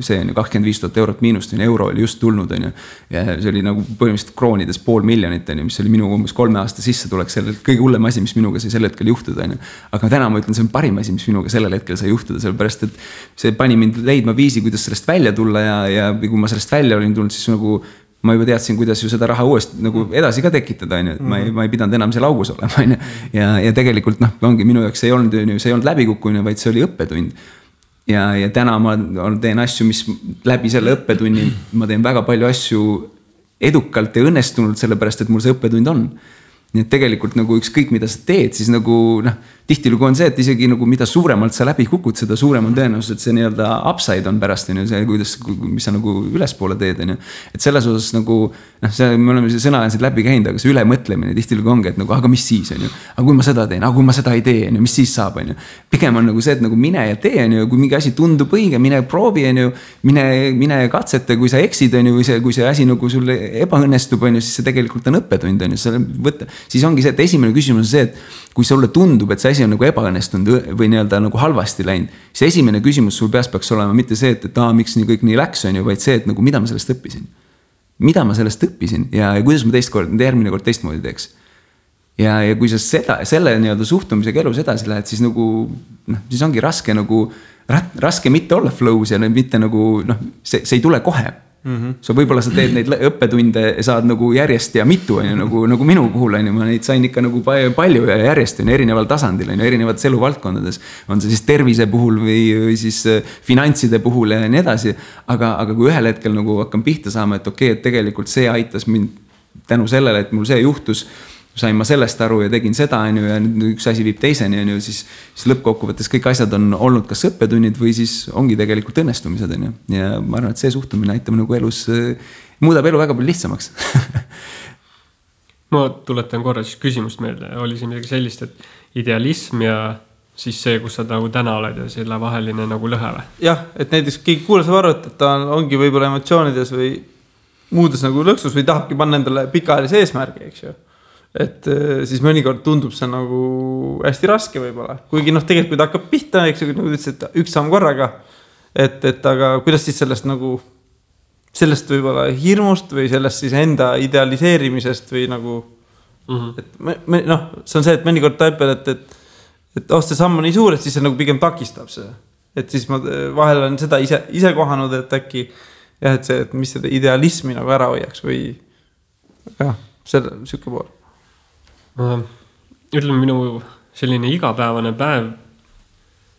see on 25 000 eurot miinust, euro oli just tulnud, ja see oli nagu põhimõtteliselt kroonides 500 000, mis oli minu umbes 3 aasta sissetulek, selle kõige hullem asi, mis minuga sai sel hetkel juhtuda. Aga täna ma ütlen, see on parim asi, mis minuga sellel hetkel sai juhtuda, sellepärast, et see pani mind leidma viisi, kuidas sellest välja tulla ja kui ma sellest välja olin tulnud, siis nagu ma juba teadsin, kuidas ju seda raha uuesti nagu edasi ka tekitada, et ma ei pidanud enam seal augus olema, ja tegelikult ongi minu jaoks see ei olnud läbikukkumine, vaid see oli õppetund. Ja täna ma teen asju, mis läbi selle õppetunni, ma teen väga palju asju edukalt ja õnnestunult, sellepärast, et mul see õppetund on. Nii et tegelikult nagu ükskõik mida sa teed, siis nagu tihtilugu on see, et isegi nagu mida suuremalt sa läbi kukud, seda suurem on tõenäosus, et see nii-öelda upside on pärast, see, mis sa nagu ülespoole teed. Et selles osas nagu, me oleme see sõna siin läbi käinud, aga see ülemõtlemine tihtilugu ongi, et nagu, aga mis siis on ju, aga kui ma seda teen, aga kui ma seda ei tee, mis siis saab, on ju. Pigem on nagu see, et nagu mine ja tee, on ju, kui mingi asi tundub õige, mine proovi, on ju, mine katsete, kui sa eksid, on ju, või see asi nagu sulle ebaõnnestub, on ju, siis see tegelikult on õppetund, on ju, siis ongi see, et esimene küsimus on see, et kui sulle tundub, et see asi on nagu ebaõnnestunud või nii-öelda nagu halvasti läinud, siis esimene küsimus sul peas peaks olema mitte see, et miks nii kõik nii läks, on ju, vaid see, et nagu mida ma sellest õppisin. Mida ma sellest õppisin ja kuidas ma järgmine kord teistmoodi teeks. Ja kui sa selle nii-öelda suhtumisega elus edasi lähed, siis nagu, siis ongi raske mitte olla flow's ja mitte nagu, see ei tule kohe. So võib-olla sa teed neid õppetunde saad nagu järjest ja mitu, nagu minu puhul, ma neid sain ikka nagu palju ja järjest erineval tasandil, erinevates eluvaldkondades. On see siis tervise puhul või siis finantside puhul ja nii edasi. Aga kui ühel hetkel nagu hakkan pihta saama, et okei, et tegelikult see aitas mind tänu sellele, et mul see juhtus, sain ma sellest aru ja tegin seda, ja üks asi viib teiseni, siis lõppkokkuvõttes kõik asjad on olnud kas õppetunnid või siis ongi tegelikult õnnestumised, ja ma arvan, et see suhtumine aitab nagu elus, muudab elu väga palju lihtsamaks. Ma tuletan korra siis küsimust meelde, oli siin midagi sellist, et idealism ja siis see, kus sa nagu täna oled ja selle vaheline nagu lõhe või? Jah, et näiteks keegi kuulas arvata, et ta ongi võib-olla emotsioonides või muudes nagu lõksus või tahabki panna endale pikaajalise eesmärgi, eks ju. Et siis mõnikord tundub see nagu hästi raske võib-olla. Kuigi tegelikult kui ta hakkab pihta, eks ju, nagu ütlesid, et üks samm korraga. Et aga kuidas siis sellest nagu, sellest võib-olla hirmust või sellest siis enda idealiseerimisest või nagu, et see on see, et mõnikord taipel, et see samm on nii suur, et siis see nagu pigem takistab see. Et siis ma vahel olen seda ise kohanud, et äkki jah, et see, et mis seda idealismi nagu ära hoiaks või jah, selle siuke pool. Ütleme, minu selline igapäevane päev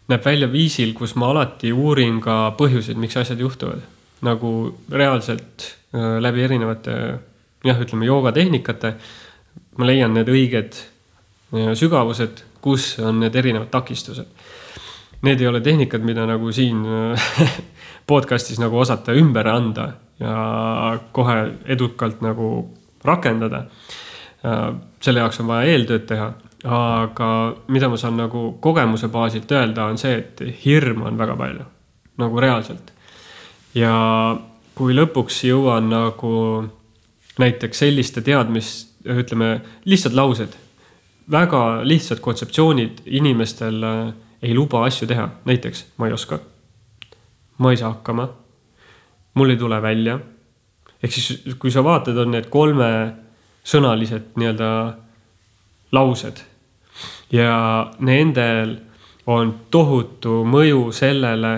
näeb välja viisil, kus ma alati uurin ka põhjuseid, miks asjad juhtuvad. Nagu reaalselt läbi erinevate, ütleme, joogatehnikate ma leian need õiged sügavused, kus on need erinevad takistused. Need ei ole tehnikad, mida nagu siin podcastis nagu osata ümber anda ja kohe edukalt nagu rakendada. Selle jaoks on vaja eeltööd teha, aga mida ma saan nagu kogemuse baasilt öelda on see, et hirm on väga palju, nagu reaalselt. Ja kui lõpuks jõuan nagu näiteks selliste teadmist, ütleme, lihtsad laused, väga lihtsad kontseptsioonid inimestel ei luba asju teha. Näiteks, ma ei oska, ma ei saa hakkama, mul ei tule välja. Ehk siis, kui sa vaatad, on need 3 sõnalised nii-öelda laused ja nendel on tohutu mõju sellele,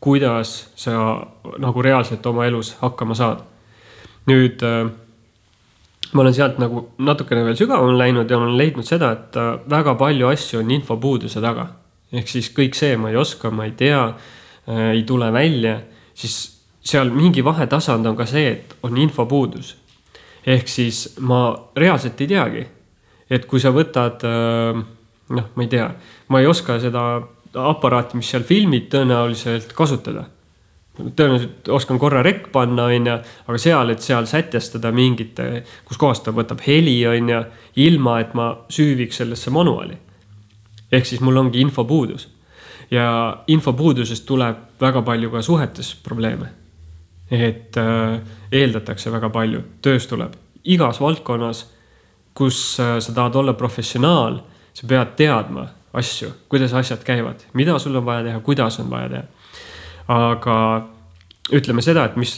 kuidas sa nagu reaalselt oma elus hakkama saad. Nüüd ma olen sealt nagu natukene veel sügavam läinud ja olen leidnud seda, et väga palju asju on infopuuduse taga. Ehk siis kõik see, ma ei oska, ma ei tea, ei tule välja, siis seal mingi vahetasand on ka see, et on infopuudus. Ehk siis ma reaalselt ei teagi, et kui sa võtad, ma ei tea, ma ei oska seda aparaati, mis seal filmid tõenäoliselt kasutada. Tõenäoliselt oskan korra rekk panna, aga seal sätestada mingite, kus kohast ta võtab heli, ilma, et ma süüviks sellesse manuaali. Ehk siis mul ongi infopuudus. Ja infopuudusest tuleb väga palju ka suhetes probleeme. Et eeldatakse väga palju. Töös tuleb igas valdkonnas, kus sa tahad olla professionaal, sa pead teadma asju, kuidas asjad käivad, mida sul on vaja teha, kuidas on vaja teha. Aga ütleme seda, et mis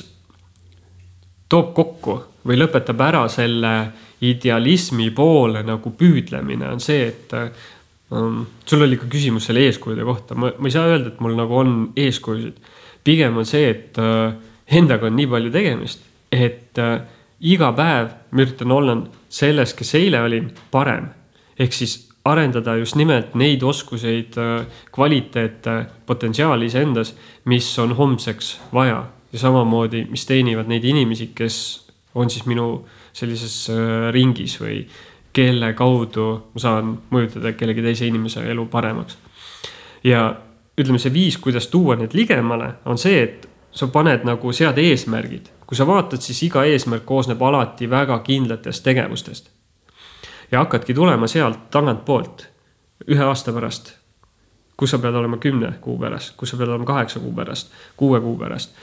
toob kokku või lõpetab ära selle idealismi poole nagu püüdlemine on see, et sul oli ka küsimus selle eeskujude kohta. Ma ei saa öelda, et mul nagu on eeskujusid. Pigem on see, et endaga on nii palju tegemist, et iga päev ma üritan olla selles, kes eile olin, parem. Ehk siis arendada just nimelt neid oskuseid, kvaliteete, potentsiaali endas, mis on homseks vaja. Ja samamoodi, mis teenivad neid inimesi, kes on siis minu sellises ringis või kelle kaudu ma saan mõjutada kellegi teise inimese elu paremaks. Ja ütleme, see viis, kuidas tuua need ligemale, on see, et sa paned nagu sead eesmärgid. Kui sa vaatad, siis iga eesmärk koosneb alati väga kindlatest tegevustest. Ja hakkadki tulema sealt tagant poolt 1 aasta pärast, kus sa pead olema 10 kuu pärast, kus sa pead olema 8 kuu pärast, 6 kuu pärast.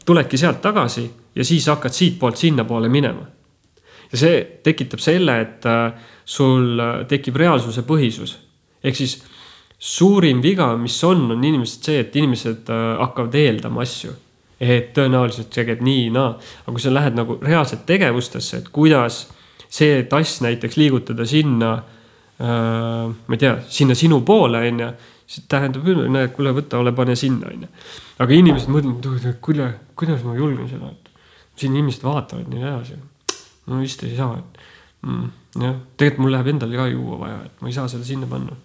Tuledki sealt tagasi ja siis hakkad siit poolt sinna poole minema. Ja see tekitab selle, et sul tekib reaalsuse põhisus. Ehk siis suurim viga, mis on inimesed see, et inimesed hakkavad eeldama asju. Et tõenäoliselt see käib nii, aga kui sa lähed nagu reaalselt tegevustesse, et kuidas see tass näiteks liigutada sinna, ma ei tea, sinna sinu poole, siis tähendab, kuule võtta, ole pane sinna. Aga inimesed mõtlevad, kuidas ma julgen seda, et siin inimesed vaatavad nii edasi. No vist ei saa. Tegelikult mul läheb endal ka juua vaja, et ma ei saa seda sinna panna.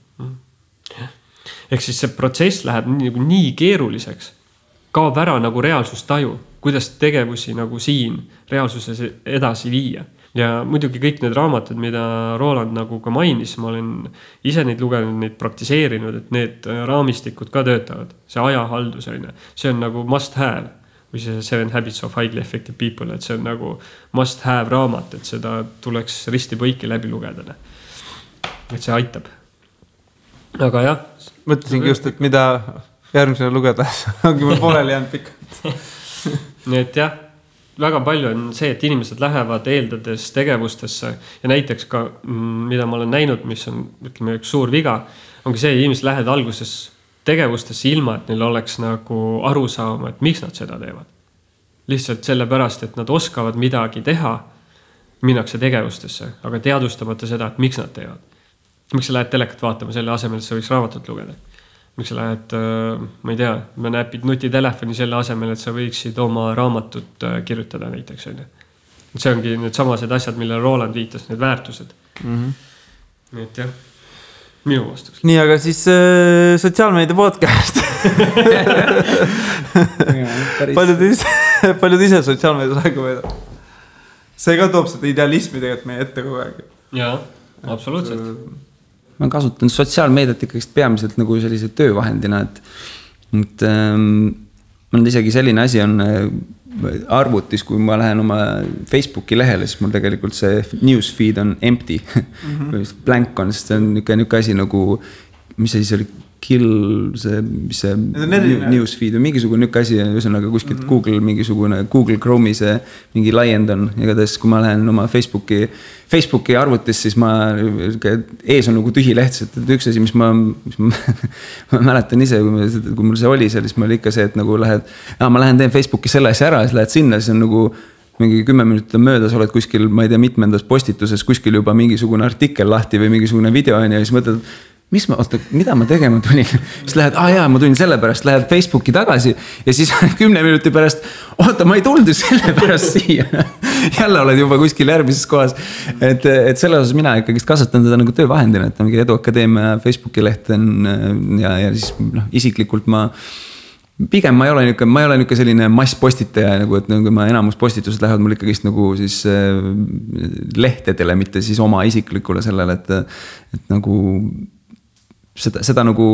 Ehk siis see protsess läheb nii keeruliseks, kaob ära nagu reaalsustaju, kuidas tegevusi nagu siin reaalsuses edasi viia. Ja muidugi kõik need raamatud, mida Roland nagu ka mainis, ma olen ise neid lugenud, neid praktiseerinud, et need raamistikud ka töötavad. See ajahaldus, see on nagu must have või see 7 Habits of Highly Effective People, et see on nagu must have raamat, et seda tuleks risti põiki läbi lugeda. Et see aitab. Aga jah. Mõtlesingi just, et mida järgmisena lugeda, ongi mul pooleli jäänud pikalt. Nii et jah, väga palju on see, et inimesed lähevad eeldades tegevustesse ja näiteks ka, mida ma olen näinud, mis on ütleme, üks suur viga, ongi see, et inimesed lähevad alguses tegevustesse ilma, et neil oleks nagu aru saama, et miks nad seda teevad. Lihtsalt sellepärast, et nad oskavad midagi teha, minnakse tegevustesse, aga teadustamata seda, et miks nad teevad. miks sa lähed telekat vaatama selle asemel, et sa võiks raamatut lugeda? Miks sa lähed, ma ei tea, ma näpid nutitelefoni selle asemel, et sa võiksid oma raamatut kirjutada näiteks. See ongi need samased asjad, millele Roland viitas, need väärtused. Nii et jah, minu vastus. Nii, aga siis sotsiaalmeedia podcast. paljud ise sotsiaalmeedias aega veedab. See ka toob seda idealismi tegelikult meie ette kogu aeg. Jaa, absoluutselt. Ma kasutan sotsiaalmeediat ikkagi peamiselt nagu sellise töövahendina, et ma nüüd isegi selline asi on arvutis, kui ma lähen oma Facebooki lehele, siis mul tegelikult see newsfeed on empty. Blank on, sest see on niisugune asi nagu, mis see siis oli, see newsfeed või mingisugune niisugune asi, ühesõnaga kuskilt Google Chrome'i see mingi laiend on. Igatahes, kui ma lähen oma Facebooki arvutis, siis ees on nagu tühi leht, et üks asi, mis ma mäletan ise, kui mul see oli seal, siis ma oli ikka see, et nagu ma lähen teen Facebooki selle asja ära, siis lähed sinna, siis on nagu mingi 10 minutit on möödas, oled kuskil, ma ei tea, mitmendas postituses, kuskil juba mingisugune artikkel lahti või mingisugune video on ja siis mõtled, mida ma tegema tulin? Siis lähed, ma tulin selle pärast, lähed Facebooki tagasi ja siis 10 minuti pärast, ma ei tulnud selle pärast siia. Jälle oled juba kuskil järgmises kohas. Et selle osas mina ikkagi kasutan seda nagu töövahendina, et mingi Edu Akadeemia Facebooki leht on ja siis isiklikult pigem ma ei ole niisugune selline masspostitaja, nagu, et nagu ma enamus postitused lähevad mul ikkagi nagu siis lehtedele, mitte siis oma isiklikule sellele, et nagu seda nagu,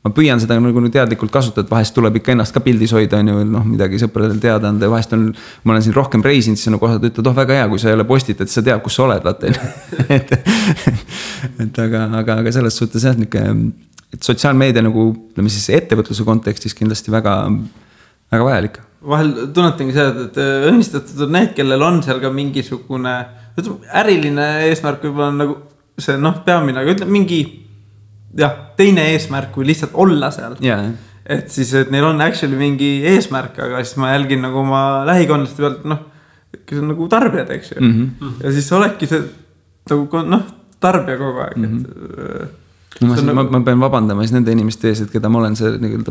ma püüan seda nagu teadlikult kasutada, et vahest tuleb ikka ennast ka pildis hoida, on ju, midagi sõpradel teada anda ja vahest ma olen siin rohkem reisinud, siis on nagu osad ütled, väga hea, kui sa ei ole postitad, siis sa tead, kus sa oled, vaata. aga selles suhtes jah, et sotsiaalmeedia nagu, ütleme siis ettevõtluse kontekstis kindlasti väga, väga vajalik. Vahel tunnetangi seda, et õnnistatud on need, kellel on seal ka mingisugune äriline eesmärk võib-olla on nagu see peamine, aga ütleme mingi teine eesmärk kui lihtsalt olla seal. Yeah. Et siis, et neil on actually mingi eesmärk, aga siis ma jälgin nagu oma lähikondlaste pealt, kes on nagu tarbijad, eks ju. Ja siis oledki see nagu, tarbija kogu aeg, Ma pean vabandama siis nende inimeste ees, et keda ma olen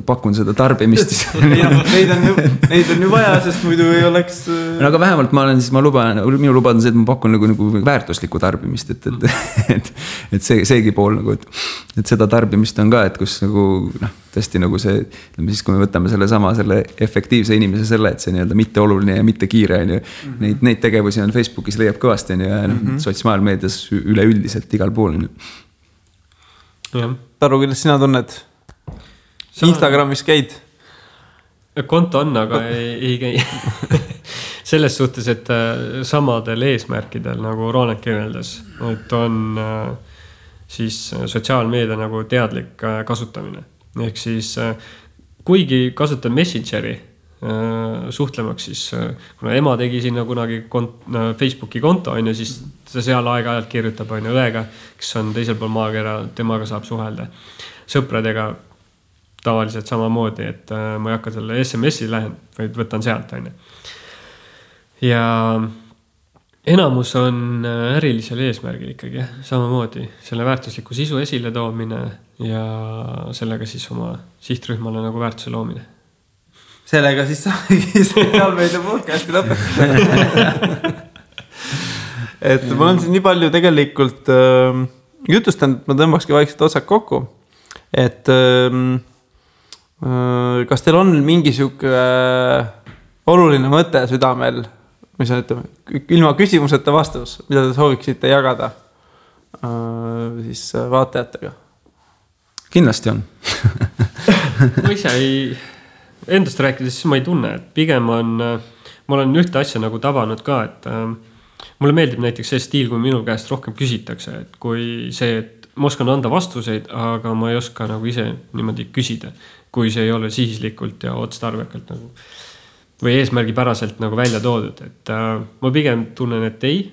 pakun seda tarbimist. Neid on ju vaja, sest muidu ei oleks... aga vähemalt minu lubad on see, et ma pakun nagu väärtuslikku tarbimist, et seegi pool nagu, et seda tarbimist on ka, et kus nagu tõesti nagu see, siis kui me võtame selle efektiivse inimese selle, et see mitte oluline ja mitte kiire on ju, neid tegevusi on Facebookis leiab kõvasti on ju, ja sotsiaalmeedias üleüldiselt igal pool on ju. Taru, kuidas sina tunned? Instagramis käid? Konto on, aga ei käi. Selles suhtes, et samadel eesmärkidel, nagu Roland kirjeldas, et on siis sotsiaalmeedia nagu teadlik kasutamine. Ehk siis, kuigi kasutan Messengeri suhtlemaks, siis kuna ema tegi sinna kunagi Facebooki konto, on ju, siis ta seal aeg-ajalt kirjutab on õega, kes on teisel pool maakera, temaga saab suhelda. Sõpradega tavaliselt samamoodi, et ma ei hakka selle SMS-i lähen, vaid võtan sealt, on ju. Ja enamus on ärilisel eesmärgil ikkagi, samamoodi selle väärtusliku sisu esile toomine ja sellega siis oma sihtrühmale nagu väärtuse loomine. Sellega siis saagi sotsiaalmeedia podcasti lõpetada. Et mul on siin nii palju tegelikult jutustanud, et ma tõmbakski vaikselt otsad kokku. Et kas teil on mingisugune oluline mõte südamel, mis on, ütleme, ilma küsimuseta vastus, mida te sooviksite jagada siis vaatajatega? Kindlasti on. Ma ise endast rääkides, siis ma ei tunne, et pigem ma olen ühte asja nagu tabanud ka, et mulle meeldib näiteks see stiil, kui minu käest rohkem küsitakse, et kui see, et ma oskan anda vastuseid, aga ma ei oska nagu ise niimoodi küsida, kui see ei ole sihislikult ja otstarbekalt nagu, või eesmärgipäraselt nagu välja toodud, et ma pigem tunnen, et ei,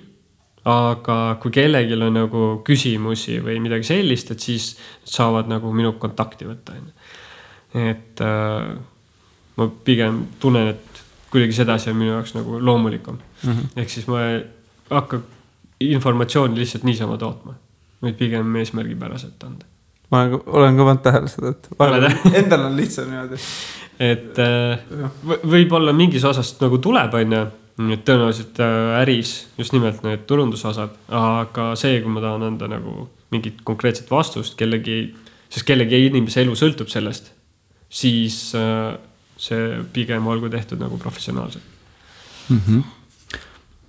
aga kui kellelgi on nagu küsimusi või midagi sellist, et siis saavad nagu minu kontakti võtta. Et ma pigem tunnen, et kuidagi sedasi on minu jaoks nagu loomulikum. Ehk siis ma ei hakka informatsiooni lihtsalt niisama tootma. vaid pigem eesmärgipäraselt anda. Ma olen ka pannud tähele seda, et endal on lihtsam niimoodi. Et võib-olla mingis osast nagu tuleb, et tõenäoliselt äris just nimelt need turundusosad, aga see, kui ma tahan anda nagu mingit konkreetset vastust sest kellegi inimese elu sõltub sellest, siis see pigem olgu tehtud nagu professionaalselt.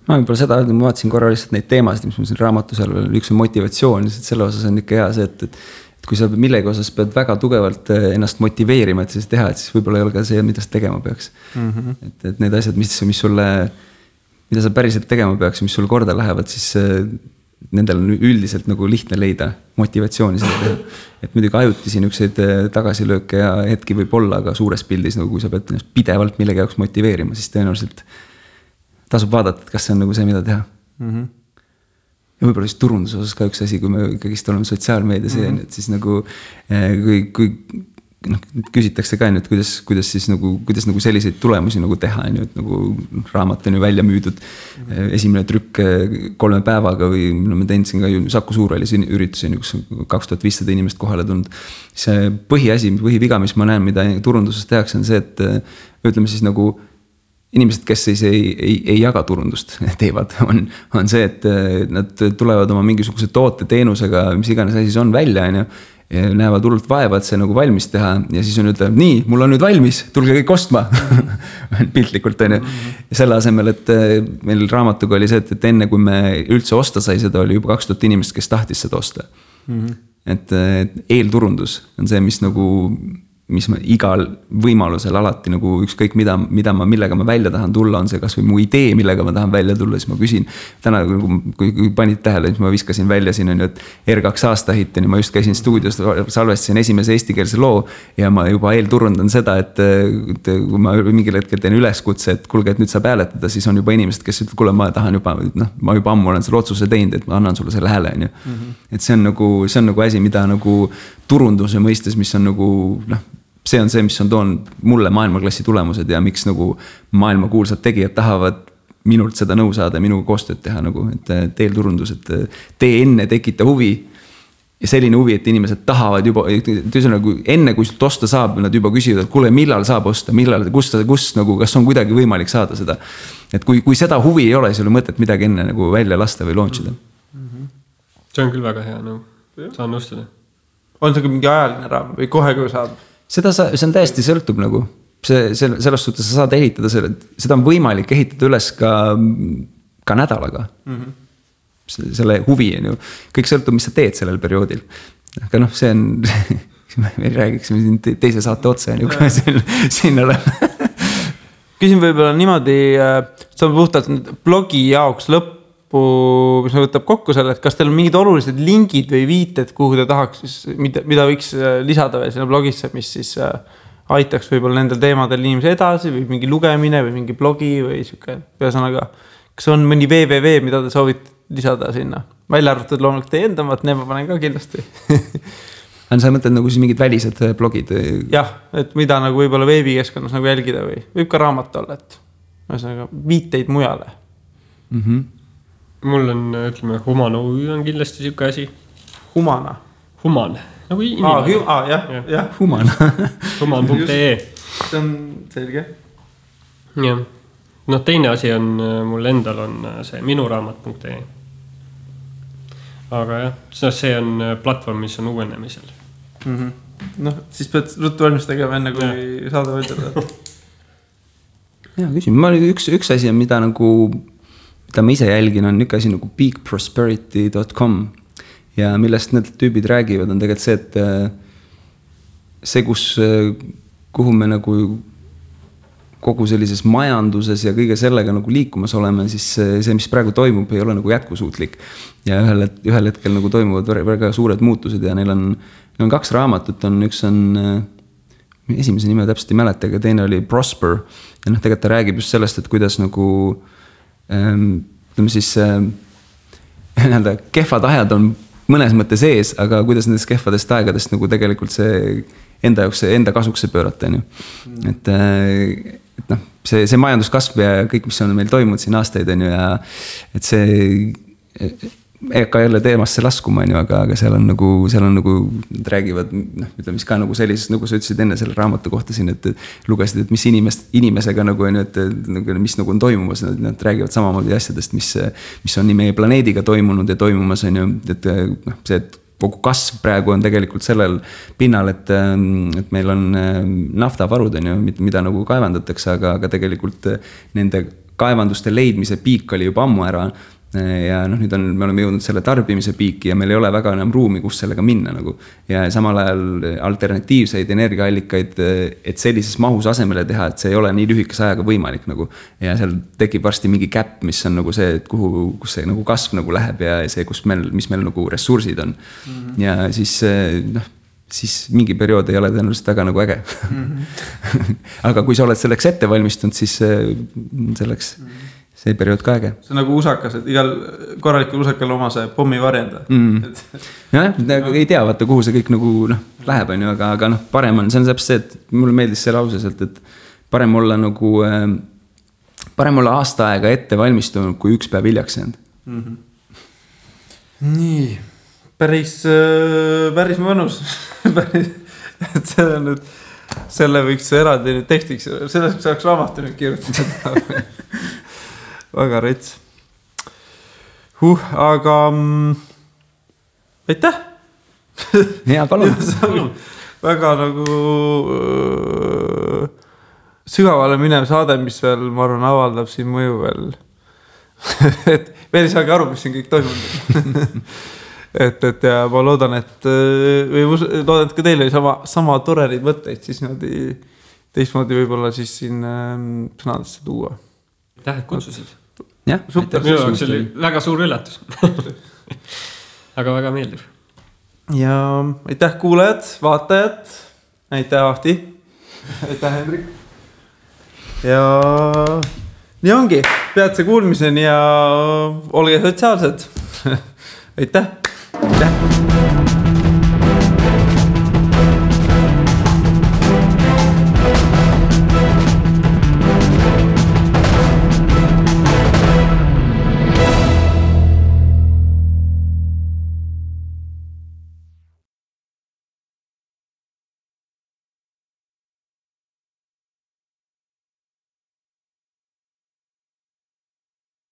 Ma võib-olla seda, ma vaatasin korra lihtsalt neid teemasid, mis mul siin raamatu seal veel, üks on motivatsioon, selle osas on ikka hea see, et kui sa millegi osas pead väga tugevalt ennast motiveerima, et siis teha, et siis võib-olla ei ole ka see, mida sa tegema peaks. Et need asjad, mis sulle, mida sa päriselt tegema peaks, mis sulle korda lähevad, siis nendel on üldiselt nagu lihtne leida motivatsiooni seda teha. Et muidugi ajutisi niukseid tagasilööke ja hetki võib olla, aga suures pildis, nagu kui sa pead pidevalt millegi jaoks motiveerima, siis tõenäoliselt tasub vaadata, et kas see on nagu see, mida teha. Ja võib-olla siis turunduse osas ka üks asi, kui me kõigist oleme sotsiaalmeedias, et siis nagu kui küsitakse ka, et kuidas nagu selliseid tulemusi nagu teha, et nagu raamat on ju välja müüdud esimene trükk 3 päevaga või me teensin ka ju Saku Suurhallis üritusi, kus 2500 inimest kohale tulnud. See põhiviga, mis ma näen, mida turunduses tehakse, on see, et ütleme siis nagu inimesed, kes siis ei jaga turundust teevad, on see, et nad tulevad oma mingisuguse toote teenusega, mis iganes asi on välja, ja näevad hullult vaeva, et see nagu valmis teha ja siis on ütleb, nii, mul on nüüd valmis, tulge kõik ostma. Piltlikult on ju. Ja selle asemel, et meil raamatuga oli see, et enne kui me üldse osta sai, seda oli juba 2000 inimest, kes tahtis seda osta. Et eelturundus on see, mis ma igal võimalusel alati nagu ükskõik millega ma välja tahan tulla, on see kas või mu idee, millega ma tahan välja tulla, siis ma küsin. Täna, kui panid tähele, siis ma viskasin välja siin, et R2 aastahitteni, ma just käisin stuudios, salvestasin esimese eestikeelse loo ja ma juba eelturundan seda, et kui ma mingil hetkel teen üleskutse, et kuulge, et nüüd saab hääletada, siis on juba inimesed, kes ütleb, kuule, ma tahan juba, ma juba ammu olen selle otsuse teinud, et ma annan sulle selle hääle. Et see on nagu asi, mida nagu turunduse mõistes, mis on nagu, see on see, mis on toonud mulle maailmaklassi tulemused ja miks nagu maailmakuulsad tegijad tahavad minult seda nõu saada, minuga koostööd teha nagu, et eelturundus, et tee enne tekita huvi ja selline huvi, et inimesed tahavad juba, enne kui sult osta saab, nad juba küsivad, et kuule, millal saab osta, kus nagu, kas on kuidagi võimalik saada seda. Et kui seda huvi ei ole, siis ei ole mõtet midagi enne nagu välja lasta või launchida. See on küll väga hea, saan nõustuda. On see mingi ajaline raam või kohe, kui saab? See on täiesti sõltub nagu. Selles suhtes sa saad ehitada seda on võimalik ehitada üles ka nädalaga. Selle huvi on ju. Kõik sõltub, mis sa teed sellel perioodil. Aga see on, me räägiksime siin teise saate otsa, kui siin oleme. Küsin võib-olla niimoodi, see on puhtalt blogi jaoks lõppu, mis me võtab kokku selle, et kas teil on mingid olulised lingid või viited, kuhu te tahaks, mida võiks lisada veel sinna blogisse, mis siis aitaks võib-olla nendel teemadel inimesi edasi või mingi lugemine või mingi blogi või siuke, ühesõnaga, kas on mõni www, mida te soovite lisada sinna? Välja arvatud loomulikult teie endamat, need ma panen ka kindlasti. Sa mõtled nagu siis mingid välised blogid? Jah, et mida nagu võib-olla veebikeskkonnas nagu jälgida või võib ka raamat olla, et ühesõnaga viiteid mujale. Mul on, ütleme, Human OÜ on kindlasti siuke asi. Human, nagu inimene. Jah. Human. Human.ee. See on selge. Jah. Teine asi on, mul endal on see minuraamat.ee. Aga jah, see on platvorm, mis on uuenemisel. Siis pead ruttu valmis tegema enne, kui saada võidelda. Jaa, küsin. Üks asi on, mida ma ise jälgin, on üks asi nagu peakprosperity.com ja millest need tüübid räägivad, on tegelikult see, et see, kuhu me nagu kogu sellises majanduses ja kõige sellega nagu liikumas oleme, siis see, mis praegu toimub, ei ole nagu jätkusuutlik. Ja ühel hetkel nagu toimuvad väga suured muutused ja neil on 2 raamatut, üks on, esimese nime täpselt ei mäleta, aga teine oli Prosper ja tegelikult ta räägib just sellest, et kuidas nagu ütleme siis kehvad ajad on mõnes mõttes ees, aga kuidas nendest kehvadest aegadest nagu tegelikult see enda jaoks, enda kasuks pöörata. Et see majanduskasv ja kõik, mis on meil toimunud siin aastaid on ju ja et see ega jälle teemasse laskuma, aga seal on nagu, nad räägivad, ütleme, mis ka nagu sellises, nagu sa ütlesid enne selle raamatu kohta siin, et lugesid, et mis inimesega nagu on, et mis nagu on toimumas, nad räägivad samamoodi asjadest, mis on nii meie planeediga toimunud ja toimumas on ju, et see, et kogu kasv praegu on tegelikult sellel pinnal, et meil on naftavarud on ju, mida nagu kaevandatakse, aga tegelikult nende kaevanduste leidmise piik oli juba ammu ära. Ja nüüd me oleme jõudnud selle tarbimise piiki ja meil ei ole väga enam ruumi, kus sellega minna nagu. Ja samal ajal alternatiivseid energiaallikaid, et sellises mahus asemele teha, et see ei ole nii lühikese ajaga võimalik nagu. Ja seal tekib varsti mingi käpp, mis on nagu see, et kus see nagu kasv nagu läheb ja see, mis meil nagu ressursid on. Ja siis mingi periood ei ole tõenäoliselt väga nagu äge. Aga kui sa oled selleks ette valmistunud, siis selleks see periood ka äge. See on nagu usakas, et igal korralikul usakal oma see pommi varjenda. Jah, ei tea, vaata, kuhu see kõik nagu läheb, on ju, aga parem on, see on täpselt see, et mulle meeldis see lause sealt, et parem olla aasta aega ette valmistunud, kui üks päev hiljaks jäänud. Nii, päris mõnus. Et see on nüüd, selle võiks eraldi nüüd tekstiks, sellest saaks raamatu nüüd kirjutada. Väga rets. Aga aitäh. Hea, palun. Väga nagu sügavale minev saade, mis veel, ma arvan, avaldab siin mõju veel. Et veel ei saagi aru, mis siin kõik toimunud. et ja ma loodan, et ka teil oli sama torerid mõtteid, siis teistmoodi võib-olla siis siin sõnadesse tuua. Aitäh, et kutsusid. Jah, super, minu jaoks oli väga suur üllatus. Aga väga meeldiv. Ja aitäh kuulajad, vaatajad. Aitäh Ahti. Aitäh Hendrik. Ja nii ongi, peatse kuulmiseni ja olge sotsiaalsed. Aitäh. Aitäh.